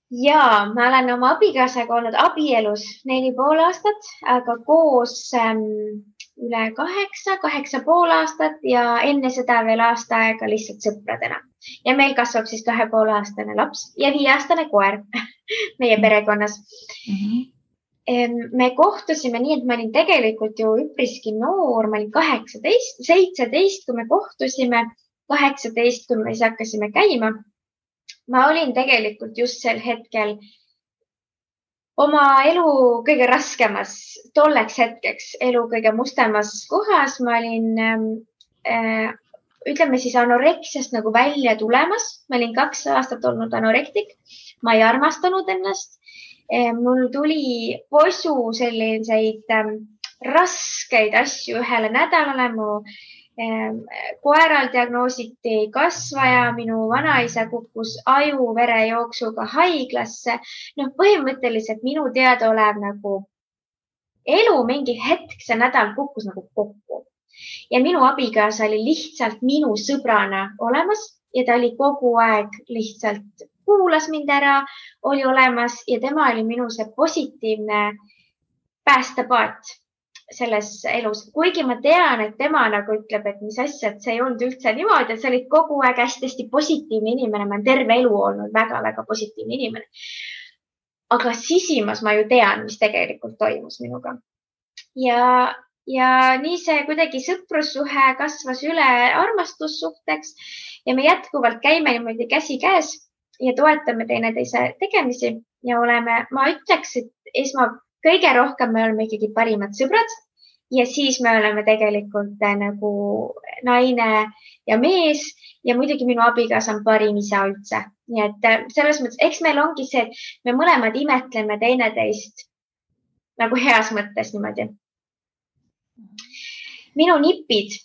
Ja, ma olen oma abikaasaga olnud abielus 4,5 aastat, aga koos üle 8,5 aastat ja enne seda veel aasta aega lihtsalt sõpradena. Ja meil kasvab siis 2,5-aastane laps ja 5-aastane koer meie perekonnas. Me kohtusime nii, et ma olin tegelikult ju üpriski noor, ma olin 17, kui me kohtusime, 18, kui me siis hakkasime käima. Ma olin tegelikult just sel hetkel oma elu kõige raskemas, tolleks hetkeks elu kõige mustemas kohas. Ma olin, ütleme siis anoreksiast nagu välja tulemas. Ma olin 2 aastat olnud anorektik. Ma ei armastanud ennast. Mul tuli posu selliseid raskeid asju ühele nädalale. Mu koeral diagnoositi kasvaja, minu vanaisa kukkus aju-verejooksuga haiglasse. Põhimõtteliselt minu teadaolev nagu elu mingi hetk, see nädal kukkus nagu kokku. Ja minu abikaasa oli lihtsalt minu sõbrana olemas ja ta oli kogu aeg lihtsalt kuulas mind ära, oli olemas ja tema oli minu see positiivne päästepaat selles elus. Kuigi ma tean, et tema nagu ütleb, et mis asja, et see ei olnud üldse niimoodi, et sa olid kogu aeg hästi positiivne inimene. Ma olen terve elu olnud väga-väga positiivne inimene. Aga sisimas ma ju tean, mis tegelikult toimus minuga. Ja nii see kuidagi sõprussuhe kasvas üle armastussuhteks ja me jätkuvalt käime niimoodi käsi käes ja toetame teineteise tegemisi ja oleme, ma ütleks, et kõige rohkem me oleme ikkagi parimad sõbrad ja siis me oleme tegelikult nagu naine ja mees ja muidugi minu abikaasa on parim isa üldse. Nii et selles mõttes, eks meil ongi see, et me mõlemad imetleme teineteist nagu heas mõttes niimoodi. Minu nipid.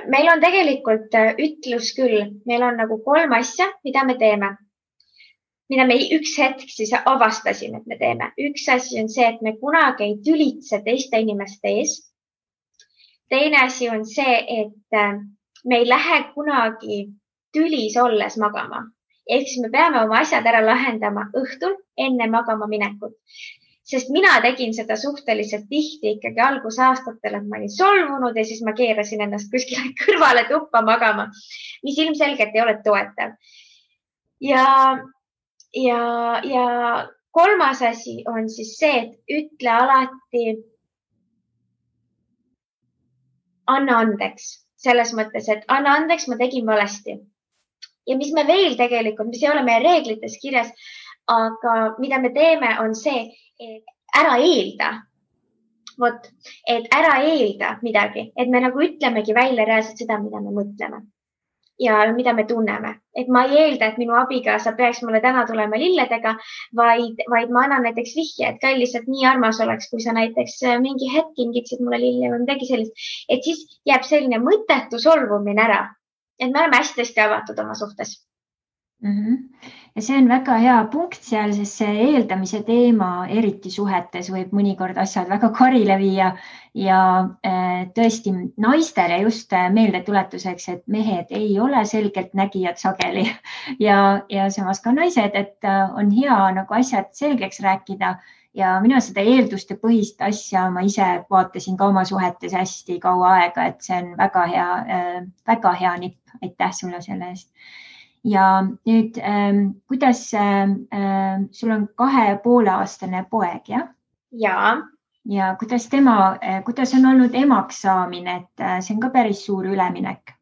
Meil on tegelikult ütlus küll, meil on nagu 3 asja, mida me teeme, mida me üks hetk siis avastasime, et me teeme. Üks asi on see, et me kunagi ei tülitse teiste inimeste ees. Teine asi on see, et me ei lähe kunagi tülis olles magama. Ehk siis me peame oma asjad ära lahendama õhtul enne magama minekut. Sest mina tegin seda suhteliselt tihti ikkagi algusaastatel, et ma olin solvunud ja siis ma keerasin ennast kuskile kõrvale tuppa magama, mis ilmselgelt ei ole toetav. Ja 3. asi on siis see, et ütle alati anna andeks. Selles mõttes, et anna andeks, ma tegin valesti. Ja mis me veel tegelikult, mis ei ole meie reeglites kirjas, aga mida me teeme, on see, et ära eelda. Vot, et ära eelda midagi, et me nagu ütlemegi välja reaalselt seda, mida me mõtleme ja mida me tunneme. Et ma ei eelda, et minu abigaasa peaks mulle täna tulema lilledega, vaid ma annan näiteks vihje, et ka lihtsalt nii armas oleks, kui sa näiteks mingi hetk kingitsid mulle lille või midagi sellist. Et siis jääb selline mõttetu solvumine ära. Et me oleme hästi avatud oma suhtes. Ja see on väga hea punkt seal, sest see eeldamise teema eriti suhetes võib mõnikord asjad väga karile viia ja tõesti naistele just meeldetuletuseks, et mehed ei ole selgelt nägijad sageli ja samas ka naised, et on hea nagu asjad selgeks rääkida ja mina seda eelduste põhist asja ma ise vaatasin ka oma suhetes hästi kaua aega, et see on väga hea nipp. Aitäh sulle selle eest. Ja nüüd, kuidas sul on 2,5-aastane poeg, jah? Ja kuidas on olnud emaks saamine, et see on ka päris suur üleminek?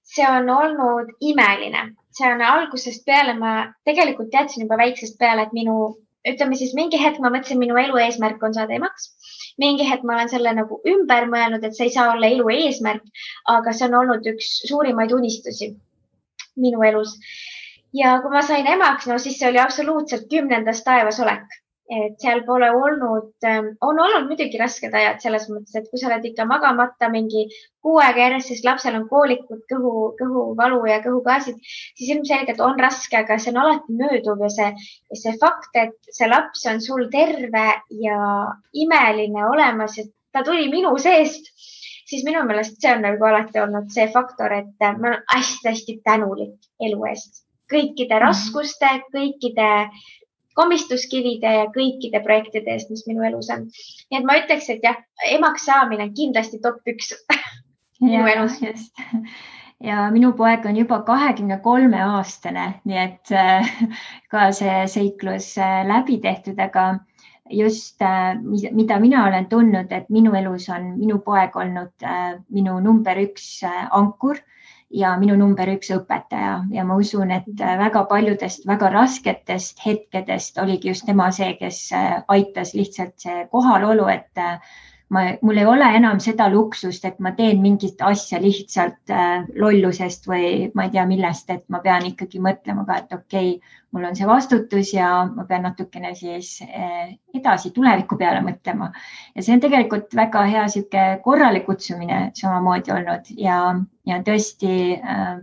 See on olnud imeline. See on algusest peale, ma tegelikult teadsin juba väiksest peale, et ütleme siis mingi hetk ma mõtlesin, minu elu eesmärk on saada emaks. Mingi hetk ma olen selle nagu ümber mõelnud, et see ei saa olla elu eesmärk, aga see on olnud üks suurimaid unistusi minu elus. Ja kui ma sain emaks, siis see oli absoluutselt 10. taevas olek. Et seal pole olnud, on olnud muidugi rasked ajad selles mõttes, et kui sa oled ikka magamata mingi 6 aega järjest, siis lapsel on koolikud, kõhuvalu ja kõhugaasid, siis ilmselgelt on raske, aga see on alati mööduv ja see fakt, et see laps on sul terve ja imeline olemas, et ta tuli minu seest, siis minu meelest see on nagu alati olnud see faktor, et ma olen hästi tänulik elu eest. Kõikide raskuste, kõikide komistuskivide ja kõikide projektide eest, mis minu elus on. Nii et ma ütleks, et jah, emaks saamine on kindlasti top 1 minu elus. Just. Ja minu poeg on juba 23-aastane, nii et ka see seiklus läbi tehtud, aga just mida mina olen tundnud, et minu elus on minu poeg olnud minu number 1 ankur ja minu number 1 õpetaja ja ma usun, et väga paljudest väga rasketest hetkedest oligi just tema see, kes aitas lihtsalt see kohalolu, et mul ei ole enam seda luksust, et ma teen mingit asja lihtsalt lollusest või ma ei tea millest, et ma pean ikkagi mõtlema ka, et okei, mul on see vastutus ja ma pean natukene siis edasi tuleviku peale mõtlema. Ja see on tegelikult väga hea sihuke korrale kutsumine samamoodi olnud ja tõesti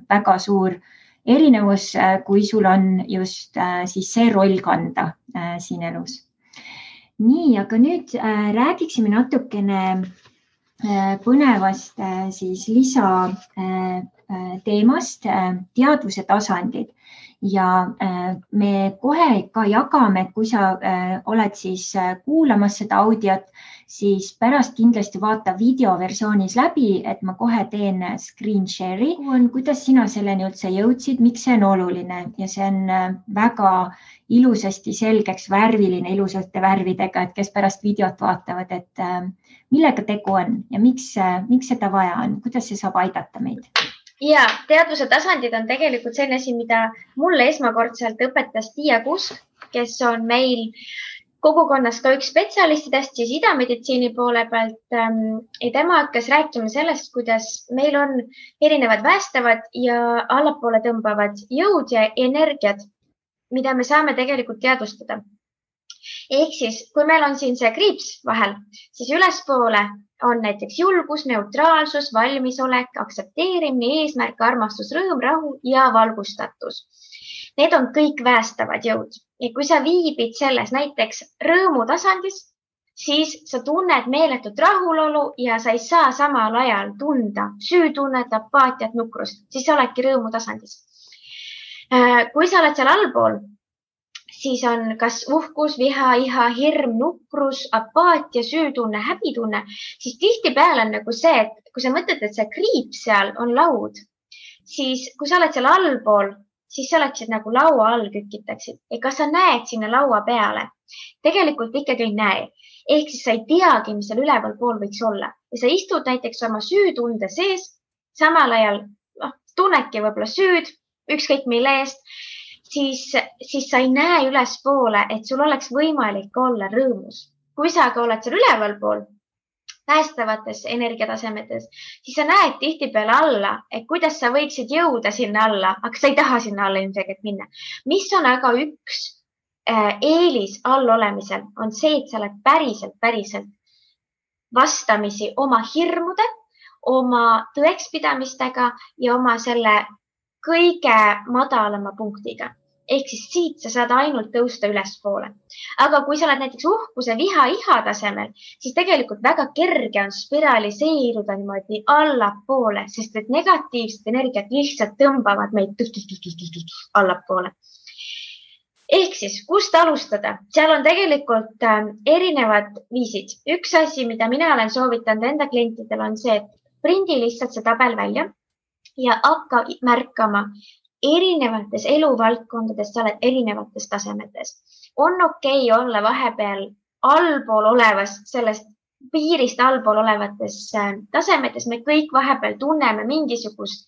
väga suur erinevus, kui sul on just siis see roll kanda siin elus. Nii, aga nüüd räägiksime natukene põnevast siis lisa teemast, teadvuse tasandid. Ja me kohe ka jagame, et kui sa oled siis kuulamas seda audiot, siis pärast kindlasti vaata videoversioonis läbi, et ma kohe teen screen share'i. Kuidas sina selleni üldse jõudsid, miks see on oluline ja see on väga ilusasti selgeks värviline, ilusate värvidega, et kes pärast videot vaatavad, et millega tegu on ja miks seda vaja on, kuidas see saab aidata meid? Ja teadvuse tasandid on tegelikult selline asi, mida mulle esmakordselt õpetas Tiia Kusk, kes on meil kogukonnas ka üks spetsialistidest siis idameditsiini poole pealt. Ja tema hakkas rääkima sellest, kuidas meil on erinevad päästavad ja allapoole tõmbavad jõud ja energiad. mida me saame tegelikult teadvustada. Ehk siis, kui meil on siin see kriips vahel, siis ülespoole on näiteks julgus, neutraalsus, valmisolek, aktsepteerimine, eesmärk, armastus, rõõm, rahu ja valgustatus. Need on kõik päästavad jõud. Ja kui sa viibid selles näiteks rõõmu tasandis, siis sa tunned meeletut rahulolu ja sa ei saa samal ajal tunda süütunnet, apaatiat, nukrust, siis sa oledki rõõmu tasandis. Kui sa oled seal allpool, siis on kas uhkus, viha, iha, hirm, nukrus, apaatia, süütunne, häbitunne, siis tihtipeale on nagu see, et kui sa mõtled, et see kriip seal on laud, siis kui sa oled seal allpool, siis sa oleksid nagu laua all kükitaksid. Ja kas sa näed sinna laua peale? Tegelikult ikkagi ei näe. Ehk siis sa ei teagi, mis seal üleval pool võiks olla. Ja sa istud näiteks oma süütunde sees, samal ajal tunnedki võib-olla süüd, ükskõik mille eest, siis sa ei näe ülespoole, et sul oleks võimalik olla rõõmus. Kui sa aga oled seal üleval pool, päästavates energiatasemetes, siis sa näed tihtipeale alla, et kuidas sa võiksid jõuda sinna alla, aga sa ei taha sinna alla ilmselgelt minna. Mis on aga üks eelis all olemisel, on see, et sa oled päriselt vastamisi oma hirmude, oma tõekspidamistega ja oma selle kõige madalama punktiga. Ehk siis siit sa saad ainult tõusta ülespoole. Aga kui sa oled näiteks uhkuse, viha, iha tasemel, siis tegelikult väga kerge on spiraliseeruda niimoodi allapoole, sest et negatiivsed energiat lihtsalt tõmbavad meid allapoole. Ehk siis, kust alustada? Seal on tegelikult erinevad viisid. Üks asi, mida mina olen soovitanud enda klientidel, on see, et prindi lihtsalt see tabel välja ja hakka märkama erinevates eluvaldkondades, sa oled erinevates tasemetes. On okei olla vahepeal allpool olevas, sellest piirist allpool olevates tasemetes. Me kõik vahepeal tunneme mingisugust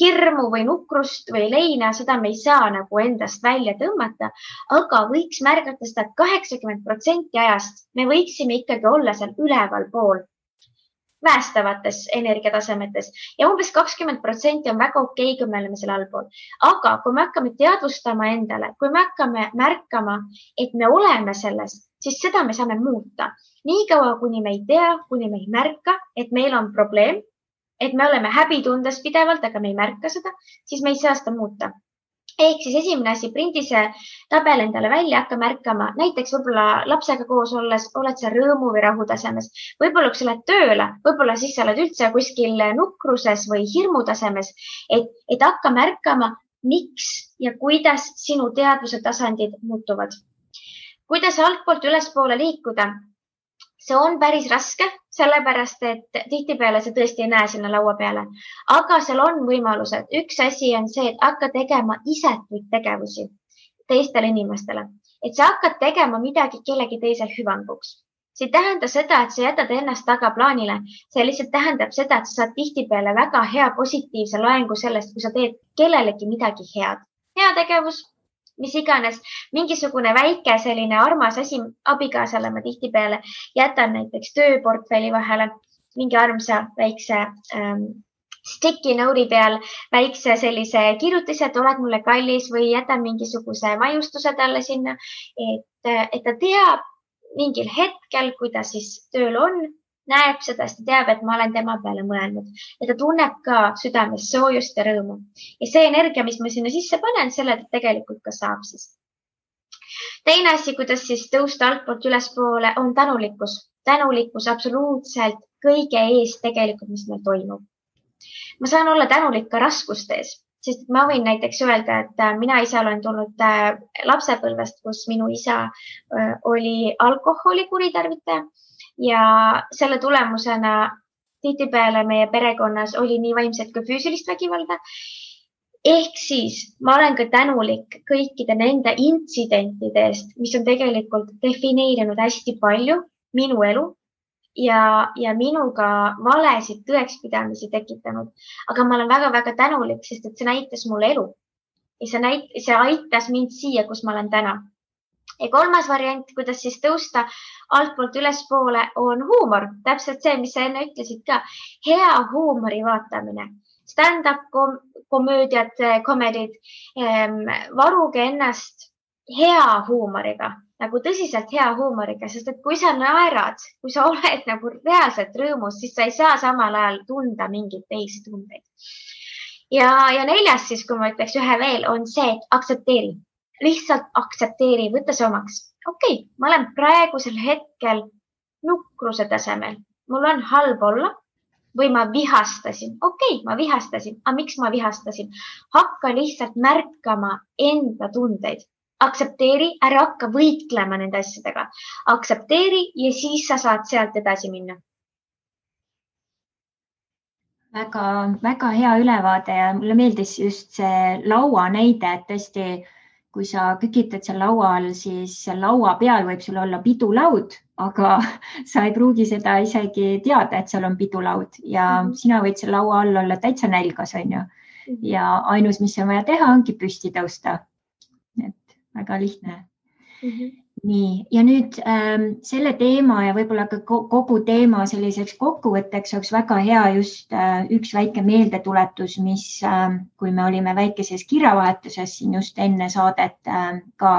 hirmu või nukrust või leina, seda me ei saa nagu endast välja tõmmata, aga võiks märgata seda, et 80% ajast me võiksime ikkagi olla seal üleval pool päästavates energiatasemetes ja umbes 20% on väga okei, kui me oleme seal allpool. Aga kui me hakkame teadvustama endale, kui me hakkame märkama, et me oleme selles, siis seda me saame muuta. Nii kaua, kuni me ei tea, kuni me ei märka, et meil on probleem, et me oleme häbitundes pidevalt, aga me ei märka seda, siis me ei saa seda muuta. Ehk siis esimene asi, prindi see tabel endale välja, hakka märkama, näiteks võib-olla lapsega koos olles oled sa rõõmu või rahu tasemes. Võib-olla kui sa lähed tööle, võib-olla siis sa oled üldse kuskil nukruses või hirmu tasemes, et hakka märkama, miks ja kuidas sinu teadvuse tasandid muutuvad. Kuidas altpoolt ülespoole liikuda? See on päris raske, sellepärast, et tihtipeale sa tõesti ei näe sinna laua peale. Aga seal on võimalused. Üks asi on see, et hakka tegema isetuid tegevusi teistele inimestele. Et sa hakkad tegema midagi kellegi teisel hüvanguks. See ei tähenda seda, et sa jätad ennast tagaplaanile. See lihtsalt tähendab seda, et sa saad tihtipeale väga hea positiivse loengu sellest, kui sa teed kellelegi midagi head. Hea tegevus, mis iganes, mingisugune väike selline armas asi abikaasale ma tihtipeale jätan näiteks tööportfelli vahele, mingi armsa väikse sticky note'i peal, väikse sellise kirjutise, et oled mulle kallis või jätan mingisuguse maiustuse talle sinna, et ta teab mingil hetkel, kui ta siis tööl on, näeb seda, sest ta teab, et ma olen tema peale mõelnud ja ta tunneb ka südames soojust ja rõõmu. Ja see energia, mis ma sinna sisse panen, selle tegelikult ka saab siis. Teine asi, kuidas siis tõusta altpoolt ülespoole, on tänulikkus. Tänulikkus absoluutselt kõige ees tegelikult, mis meil toimub. Ma saan olla tänulik ka raskustes, sest ma võin näiteks öelda, et mina ise olen tulnud lapsepõlvest, kus minu isa oli alkoholi kuritarvitaja. Ja selle tulemusena tihtipeale meie perekonnas oli nii vaimset kui füüsilist vägivalda. Ehk siis ma olen ka tänulik kõikide nende intsidentide eest, mis on tegelikult defineerinud hästi palju minu elu ja minuga valesid tõekspidamisi tekitanud. Aga ma olen väga-väga tänulik, sest et see näitas mulle elu. Ja see aitas mind siia, kus ma olen täna. Ja kolmas variant, kuidas siis tõusta altpoolt ülespoole, on huumor. Täpselt see, mis sa enne ütlesid ka. Hea huumori vaatamine. Stand-up komöödiad, komedid. Varuge ennast hea huumoriga, nagu tõsiselt hea huumoriga, sest et kui sa naerad, kui sa oled nagu reaalselt rõõmus, siis sa ei saa samal ajal tunda mingeid teisi tundeid. Ja 4. siis, kui ma ütleks ühe veel, on see, et aktsepteeri. Lihtsalt aktsepteeri, võtta see omaks. Okei, ma olen praegusel hetkel nukruse tasemel. Mul on halb olla või ma vihastasin. Okei, ma vihastasin. Aga miks ma vihastasin? Hakka lihtsalt märkama enda tundeid. Aktsepteeri, ära hakka võitlema nende asjadega. Aktsepteeri ja siis sa saad sealt edasi minna. Väga hea ülevaade ja mulle meeldis just see laua näide, et tõesti, kui sa kükitad seal laua all, siis laua peal võib sul olla pidulaud, aga sa ei pruugi seda isegi teada, et seal on pidulaud ja sina võid seal laua all olla täitsa nälgas, on ju. Ja ainus, mis on vaja teha, ongi püsti tõusta. Et väga lihtne. Nii, ja nüüd selle teema ja võib-olla ka kogu teema selliseks kokkuvõtteks oleks väga hea just üks väike meeldetuletus, mis, kui me olime väikeses kirjavahetuses siin just enne saadet ka,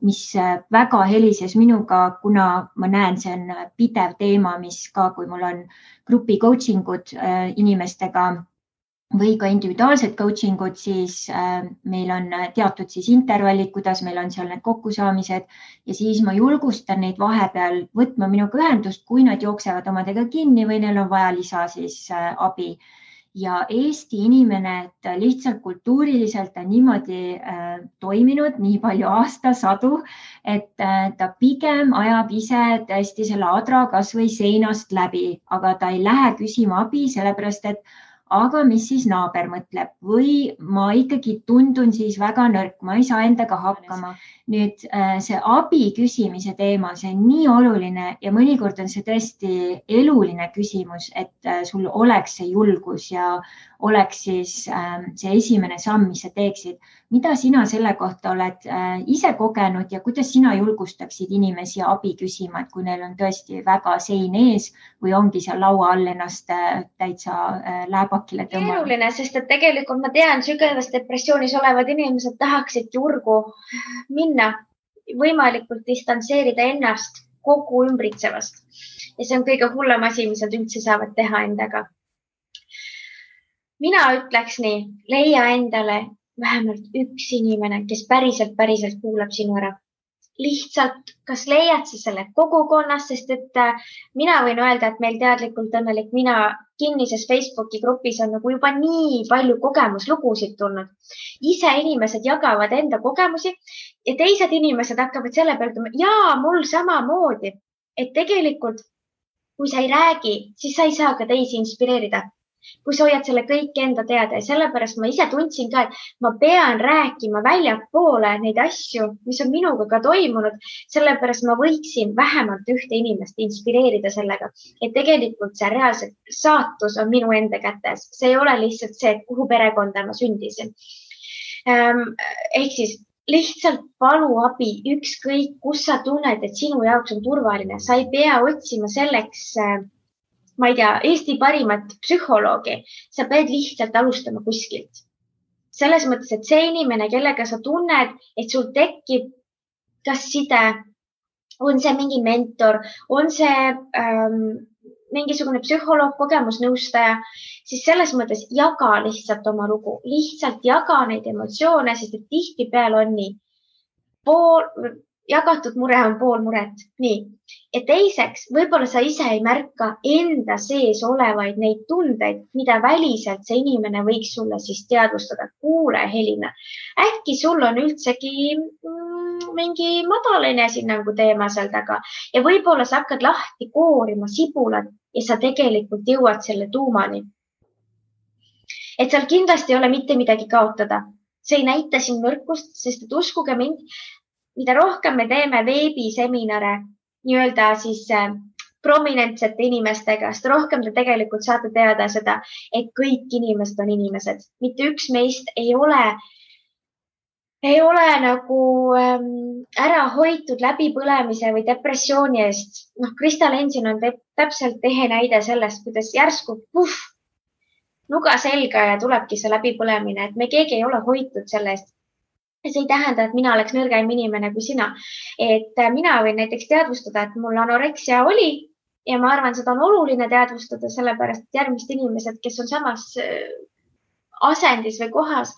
mis väga helises minuga, kuna ma näen, see on pidev teema, mis ka, kui mul on grupi coachingud inimestega või ka individuaalsed coachingud, siis meil on teatud siis intervallid, kuidas meil on seal need kokkusaamised ja siis ma julgustan neid vahepeal võtma minuga ühendust, kui nad jooksevad omadega kinni või neil on vaja lisa siis abi. Ja Eesti inimene, et lihtsalt kultuuriliselt on niimoodi toiminud nii palju aastasadu, et ta pigem ajab ise tõesti selle adra kas või seinast läbi, aga ta ei lähe küsima abi, sellepärast et aga mis siis naaber mõtleb või ma ikkagi tundun siis väga nõrk, ma ei saa endaga hakkama. Nüüd see abi küsimise teema, see on nii oluline ja mõnikord on see tõesti eluline küsimus, et sul oleks see julgus ja oleks siis see esimene samm, mis sa teeksid. Mida sina selle kohta oled ise kogenud ja kuidas sina julgustaksid inimesi abi küsima, et kui neil on tõesti väga sein ees või ongi seal laua all ennast täitsa lääbakile tõmmanud? Keeruline, sest et tegelikult ma tean, sügavas depressioonis olevad inimesed tahaksid julgu minna, võimalikult distantseerida ennast kogu ümbritsevast. Ja see on kõige hullem asi, mis nad üldse saavad teha endaga. Mina ütleks nii, leia endale vähemalt üks inimene, kes päriselt kuulab sinu ära. Lihtsalt, kas leiad sa selle kogukonnas, sest et mina võin öelda, et meil teadlikult õnnelik mina kinnises Facebooki grupis on nagu juba nii palju kogemuslugusid tulnud. Ise inimesed jagavad enda kogemusi ja teised inimesed hakkavad selle peale ütlema, jaa, mul samamoodi. Et tegelikult, kui sa ei räägi, siis sa ei saa ka teisi inspireerida. Kui sa hoiad selle kõik enda teada ja sellepärast ma ise tundsin ka, et ma pean rääkima väljapoole neid asju, mis on minuga ka toimunud, sellepärast ma võiksin vähemalt ühte inimest inspireerida sellega, et tegelikult see reaalselt saatus on minu enda kätes. See ei ole lihtsalt see, et kuhu perekonda ma sündisin. Ehk siis lihtsalt palu abi, ükskõik, kus sa tunned, et sinu jaoks on turvaline. Sa ei pea otsima selleks ma ei tea, Eesti parimat psühholoogi, sa pead lihtsalt alustama kuskilt. Selles mõttes, et see inimene, kellega sa tunned, et sul tekib kas side, on see mingi mentor, on see mingisugune psühholoog, kogemusnõustaja, siis selles mõttes jaga lihtsalt oma lugu, lihtsalt jaga neid emotsioone, sest et tihtipeale on nii. Jagatud mure on pool muret. Nii. Ja teiseks, võib-olla sa ise ei märka enda sees olevaid neid tundeid, mida väliselt see inimene võiks sulle siis teadvustada. Kuule, Helina, äkki sul on üldsegi mingi madalane esinnangu teema seal taga ja võib-olla sa hakkad lahti koorima sibulat ja sa tegelikult jõuad selle tuumani. Et seal kindlasti ei ole mitte midagi kaotada. See ei näita siin nõrkust, sest et uskuge mind, mida rohkem me teeme veebiseminare nii-öelda siis prominentsete inimestega, sest rohkem te tegelikult saate teada seda, et kõik inimesed on inimesed. Mitte üks meist ei ole nagu ära hoitud läbipõlemise või depressiooni eest. Krista Lensin on täpselt ehe näide sellest, kuidas järsku nuga selga ja tulebki see läbipõlemine, et me keegi ei ole hoitud selle eest. Ja see ei tähenda, et mina oleks nõrgem inimene kui sina. Et mina võin näiteks teadvustada, et mul anoreksia oli ja ma arvan, seda on oluline teadvustada, sellepärast et järgmised inimesed, kes on samas asendis või kohas,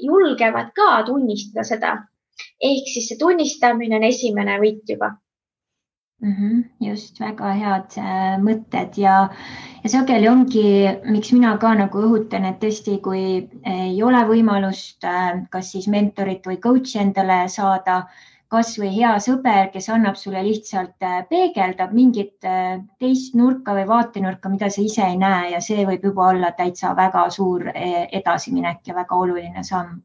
julgevad ka tunnistada seda. Ehk siis see tunnistamine on esimene võit juba. Just, väga head mõtted ja sageli ongi, miks mina ka nagu õhutan, et tõesti, kui ei ole võimalust kas siis mentorit või coach'i endale saada, kas või hea sõber, kes annab sulle lihtsalt peegeldab mingit teist nurka või vaatenurka, mida sa ise ei näe ja see võib juba olla täitsa väga suur edasiminek ja väga oluline samm.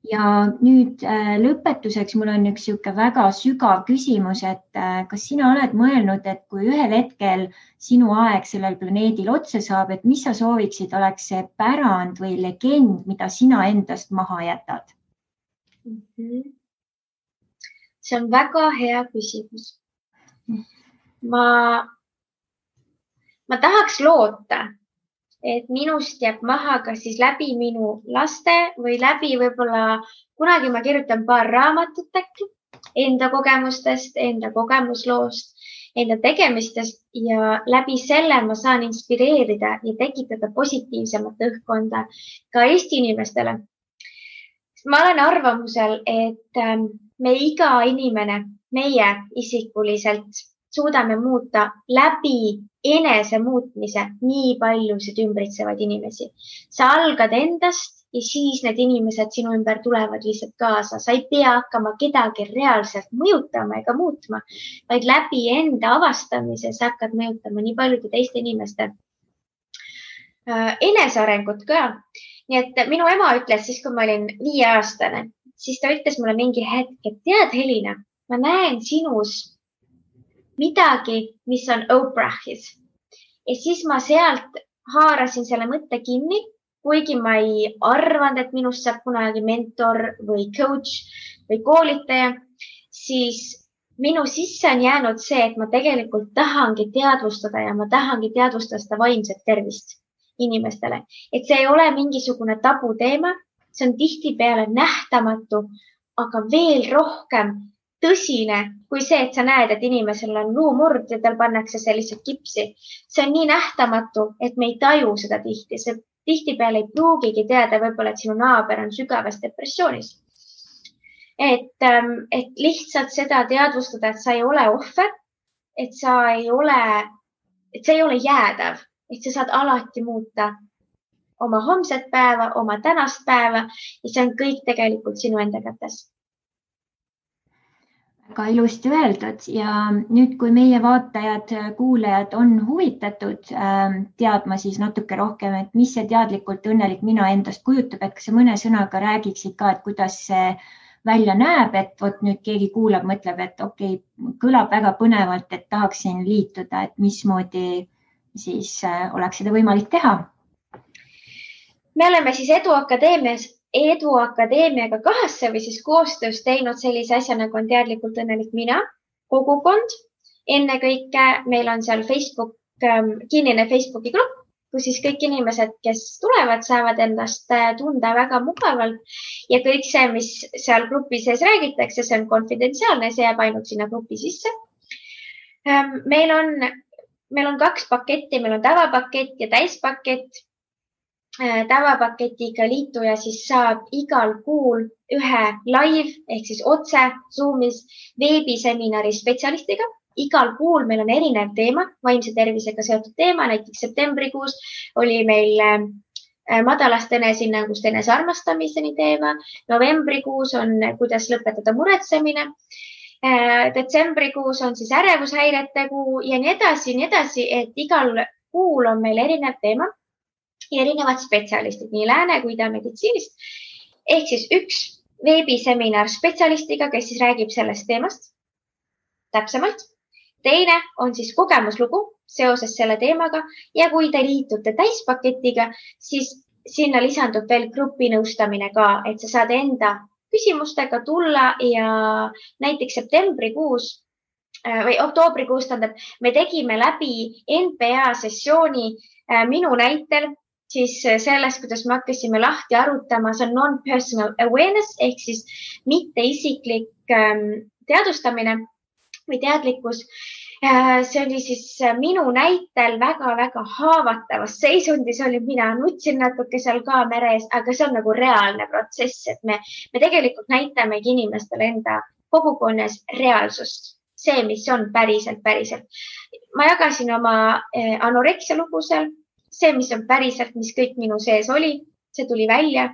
Ja nüüd lõpetuseks mul on üks väga sügav küsimus, et kas sina oled mõelnud, et kui ühel hetkel sinu aeg sellel planeedil otsa saab, et mis sa sooviksid, oleks see pärand või legend, mida sina endast maha jätad? See on väga hea küsimus. Ma tahaks loota, et minust jääb maha kas siis läbi minu laste või läbi võib-olla kunagi ma kirjutan paar raamatut äkki enda kogemustest, enda kogemusloost, enda tegemistest ja läbi selle ma saan inspireerida ja tekitada positiivsemat õhkkonda ka Eesti inimestele. Ma olen arvamusel, et me iga inimene, meie isikuliselt suudame muuta läbi enese muutmise nii paljusid ümbritsevaid inimesi. Sa algad endast ja siis need inimesed sinu ümber tulevad lihtsalt kaasa. Sa ei pea hakkama kedagi reaalselt mõjutama ega muutma, vaid läbi enda avastamise sa hakkad mõjutama nii paljude teiste inimeste enesearengut ka. Nii et minu ema ütles siis, kui ma olin 5-aastane, siis ta ütles mulle mingi hetk, et tead, Helina, ma näen sinus midagi, mis on Oprahis. Ja siis ma sealt haarasin selle mõtte kinni, kuigi ma ei arvanud, et minust saab kunagi mentor või coach või koolitaja, siis minu sisse on jäänud see, et ma tegelikult tahangi teadvustada ja ma tahangi teadvustada seda vaimset tervist inimestele. Et see ei ole mingisugune tabuteema, see on tihtipeale nähtamatu, aga veel rohkem tõsine kui see, et sa näed, et inimesel on luumurd ja tal pannakse see lihtsalt kipsi. See on nii nähtamatu, et me ei taju seda tihti. See tihtipeale ei pruugigi teada võib-olla, et sinu naaber on sügavas depressioonis. Et lihtsalt seda teadvustada, et sa ei ole ohver, et see ei ole jäädav, et sa saad alati muuta oma homset päeva, oma tänast päeva ja see on kõik tegelikult sinu enda kätes. Väga ilusti öeldud ja nüüd, kui meie vaatajad, kuulajad on huvitatud teadma siis natuke rohkem, et mis see teadlikult õnnelik mina endast kujutab, et kas sa mõne sõnaga räägiksid ka, et kuidas see välja näeb, et vot nüüd keegi kuulab, mõtleb, et okei, kõlab väga põnevalt, et tahaksin liituda, et mismoodi siis oleks seda võimalik teha? Me oleme siis Edu Akadeemiaga kahasse või siis koostöös teinud sellise asja, nagu on teadlikult õnnelik mina, kogukond. Ennekõike meil on seal kinnine Facebooki grupp, kus siis kõik inimesed, kes tulevad, saavad endast tunda väga mugavalt ja kõik see, mis seal grupi sees räägitakse, see on konfidentsiaalne, see jääb ainult sinna grupi sisse. Meil on 2 paketti, meil on tavapakett ja täispakett. Tavapaketiga liituja siis saab igal kuul ühe live ehk siis otse Zoomis veebiseminari spetsialistiga. Igal kuul meil on erinev teema, vaimse tervisega seotud teema, näiteks septembrikuus oli meil madalast enesehinnangust enesearmastamiseni teema. Novembrikuus on, kuidas lõpetada muretsemine. Detsembrikuus on siis ärevushäirete kuu ja nii edasi, et igal kuul on meil erinev teema. Ja erinevad spetsialistid, nii lääne kui ida meditsiinist. Ehk siis üks veebiseminar spetsialistiga, kes siis räägib sellest teemast täpsemalt. Teine on siis kogemuslugu seoses selle teemaga ja kui te liitute täispaketiga, siis sinna lisandub veel grupinõustamine ka, et sa saad enda küsimustega tulla ja näiteks septembrikuus või oktoobrikuus, me tegime läbi NPA sessiooni minu näitel siis sellest, kuidas me hakkasime lahti arutama, see on non-personal awareness ehk siis mitteisiklik teadvustamine või teadlikkus. See oli siis minu näitel väga-väga haavatavas seisundis oli, mina nutsin natuke seal kaamera ees, aga see on nagu reaalne protsess, et me tegelikult näitamegi inimestele enda kogukonnas reaalsust, see, mis on päriselt. Ma jagasin oma anoreksia lugu seal, see, mis on päriselt, mis kõik minu sees oli, see tuli välja.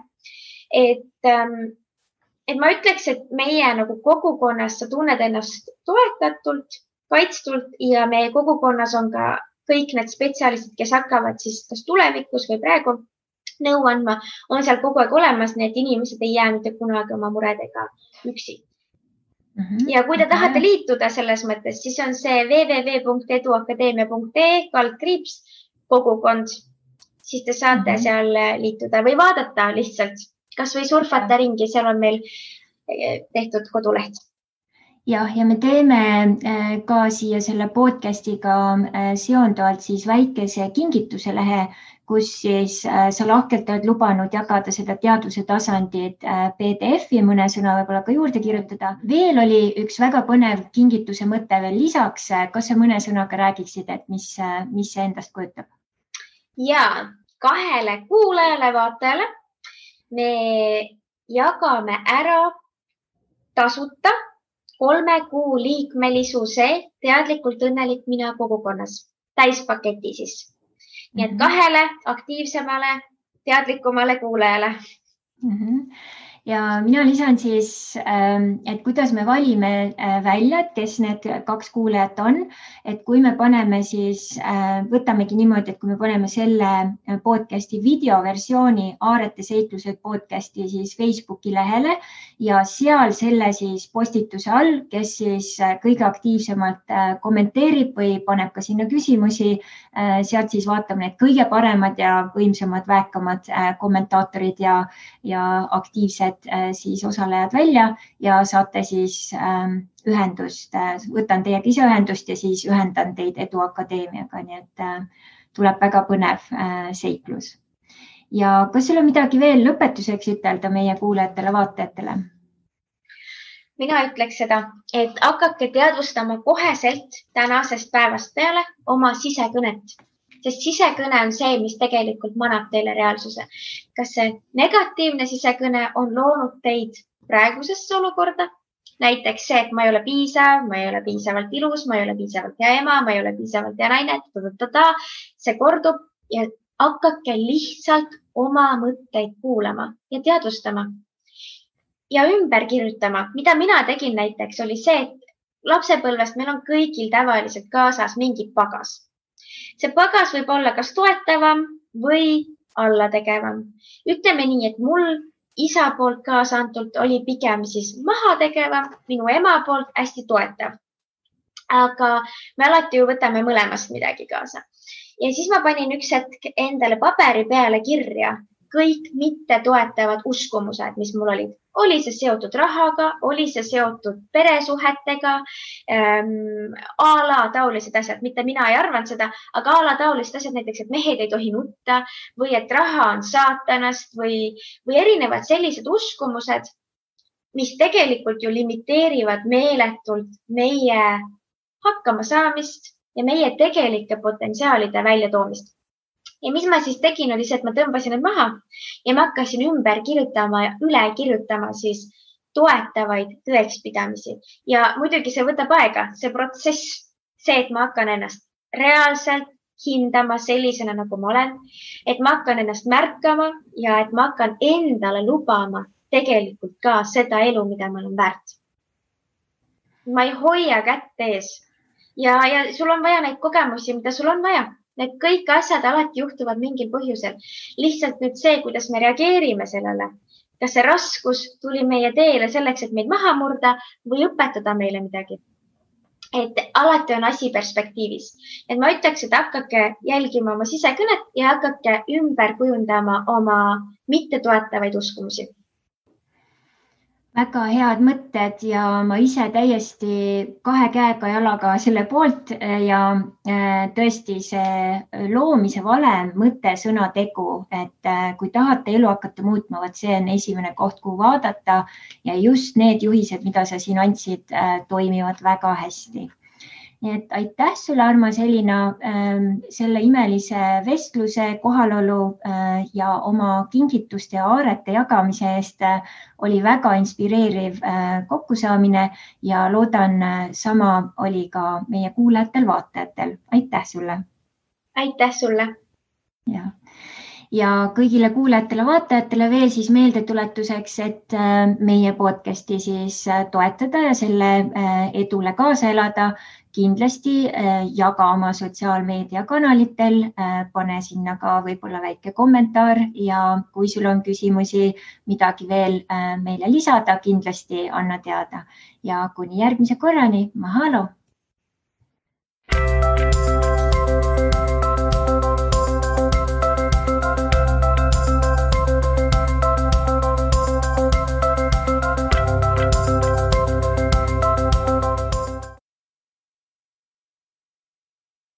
Et ma ütleks, et meie nagu kogukonnas sa tunned ennast toetatult, kaitstult ja meie kogukonnas on ka kõik need spetsialistid, kes hakkavad siis kas tulevikus või praegu nõu andma, on seal kogu aeg olemas, nii et inimesed ei jää mitte kunagi oma muredega üksi. Ja kui te tahate liituda selles mõttes, siis on see www.eduakadeemia.ee/kogukond, siis te saate seal liituda või vaadata lihtsalt, kas või surfata ringi, seal on meil tehtud koduleht. Ja me teeme ka siia selle podcast'iga seonduvalt siis väikese kingituse lehe, kus siis sa lahkelt oled lubanud jagada seda teadvuse tasandit PDF-i, mõne sõna võib-olla ka juurde kirjutada. Veel oli üks väga põnev kingituse mõte veel lisaks. Kas sa mõne sõnaga räägiksid, et mis see endast kujutab? Ja 2 kuulajale, vaatajale me jagame ära tasuta 3 kuu liikmelisuse teadlikult õnnelik mina kogukonnas, täispaketi siis. Nii et 2 aktiivsemale, teadlikumale kuulajale. Ja mina lisan siis, et kuidas me valime välja, et kes need 2 kuulajat on, et kui me paneme siis, võtamegi niimoodi, et kui me paneme selle podcasti videoversiooni Aarete seiklused podcasti siis Facebooki lehele ja seal selle siis postituse all, kes siis kõige aktiivsemalt kommenteerib või paneb ka sinna küsimusi, sealt siis vaatame need kõige paremad ja võimsamad, väekamad kommentaatorid ja aktiivsed siis osalejad välja ja saate siis ühendust, võtan teiega ise ühendust ja siis ühendan teid Edu Akadeemiaga, nii et tuleb väga põnev seiklus. Ja kas sul on midagi veel lõpetuseks ütelda meie kuulajatele, vaatajatele? Mina ütleks seda, et hakake teadvustama koheselt tänasest päevast peale oma sisekõnet. Sest sisekõne on see, mis tegelikult manab teile reaalsuse. Kas see negatiivne sisekõne on loonud teid praegusesse olukorda? Näiteks see, et ma ei ole piisav, ma ei ole piisavalt ilus, ma ei ole piisavalt hea ema, ma ei ole piisavalt hea naine, see kordub ja hakake lihtsalt oma mõtteid kuulama ja teadvustama. Ja ümber kirjutama, mida mina tegin näiteks, oli see, et lapsepõlvest meil on kõigil tavaliselt kaasas mingi pagas. See pagas võib olla kas toetavam või allategevam. Ütleme nii, et mul isa poolt kaasantult oli pigem siis mahategevam, minu ema poolt hästi toetav. Aga me alati ju võtame mõlemast midagi kaasa. Ja siis ma panin üks hetk endale paberi peale kirja kõik mitte toetavad uskumused, mis mul olid. Oli see seotud rahaga, oli see seotud peresuhetega, taolised asjad, mitte mina ei arvanud seda, aga taolised asjad näiteks, et mehed ei tohi nutta või et raha on saatanast või erinevad sellised uskumused, mis tegelikult ju limiteerivad meeletult meie hakkama saamist ja meie tegelike potentsiaalide väljatoomist. Ja mis ma siis tegin, oli see, et ma tõmbasin need maha ja ma hakkasin ümber kirjutama ja üle kirjutama siis toetavaid tõekspidamisi. Ja muidugi see võtab aega, see protsess, see, et ma hakkan ennast reaalselt hindama sellisena, nagu ma olen, et ma hakkan ennast märkama ja et ma hakkan endale lubama tegelikult ka seda elu, mida ma olen väärt. Ma ei hoia kätt ees ja sul on vaja neid kogemusi, mida sul on vaja. Need kõik asjad alati juhtuvad mingil põhjusel. Lihtsalt nüüd see, kuidas me reageerime sellele, kas see raskus tuli meie teele selleks, et meid maha murda või õpetada meile midagi. Et alati on asi perspektiivis. Et ma ütleks, et hakake jälgima oma sisekõnet ja hakake ümber kujundama oma mittetoetavaid uskumusi. väga head mõtted ja ma ise täiesti kahe käega jalaga selle poolt ja tõesti see loomise valem, mõte, sõna, tegu, et kui tahate elu hakata muutma, vot see on esimene koht, kuhu vaadata ja just need juhised, mida sa siin andsid, toimivad väga hästi. Nii et aitäh sulle, Armas Elina, selle imelise vestluse, kohalolu ja oma kingituste ja aarete jagamise eest. Oli väga inspireeriv kokkusaamine ja loodan, sama oli ka meie kuulajatel-vaatajatel. Aitäh sulle. Aitäh sulle. Ja kõigile kuulajatele-vaatajatele veel siis meeldetuletuseks, et meie podcasti siis toetada ja selle edule kaasa elada. Kindlasti jaga oma sotsiaalmeediakanalitel, pane sinna ka võib-olla väike kommentaar ja kui sul on küsimusi, midagi veel meile lisada, kindlasti anna teada. Ja kuni järgmise korrani, mahalo!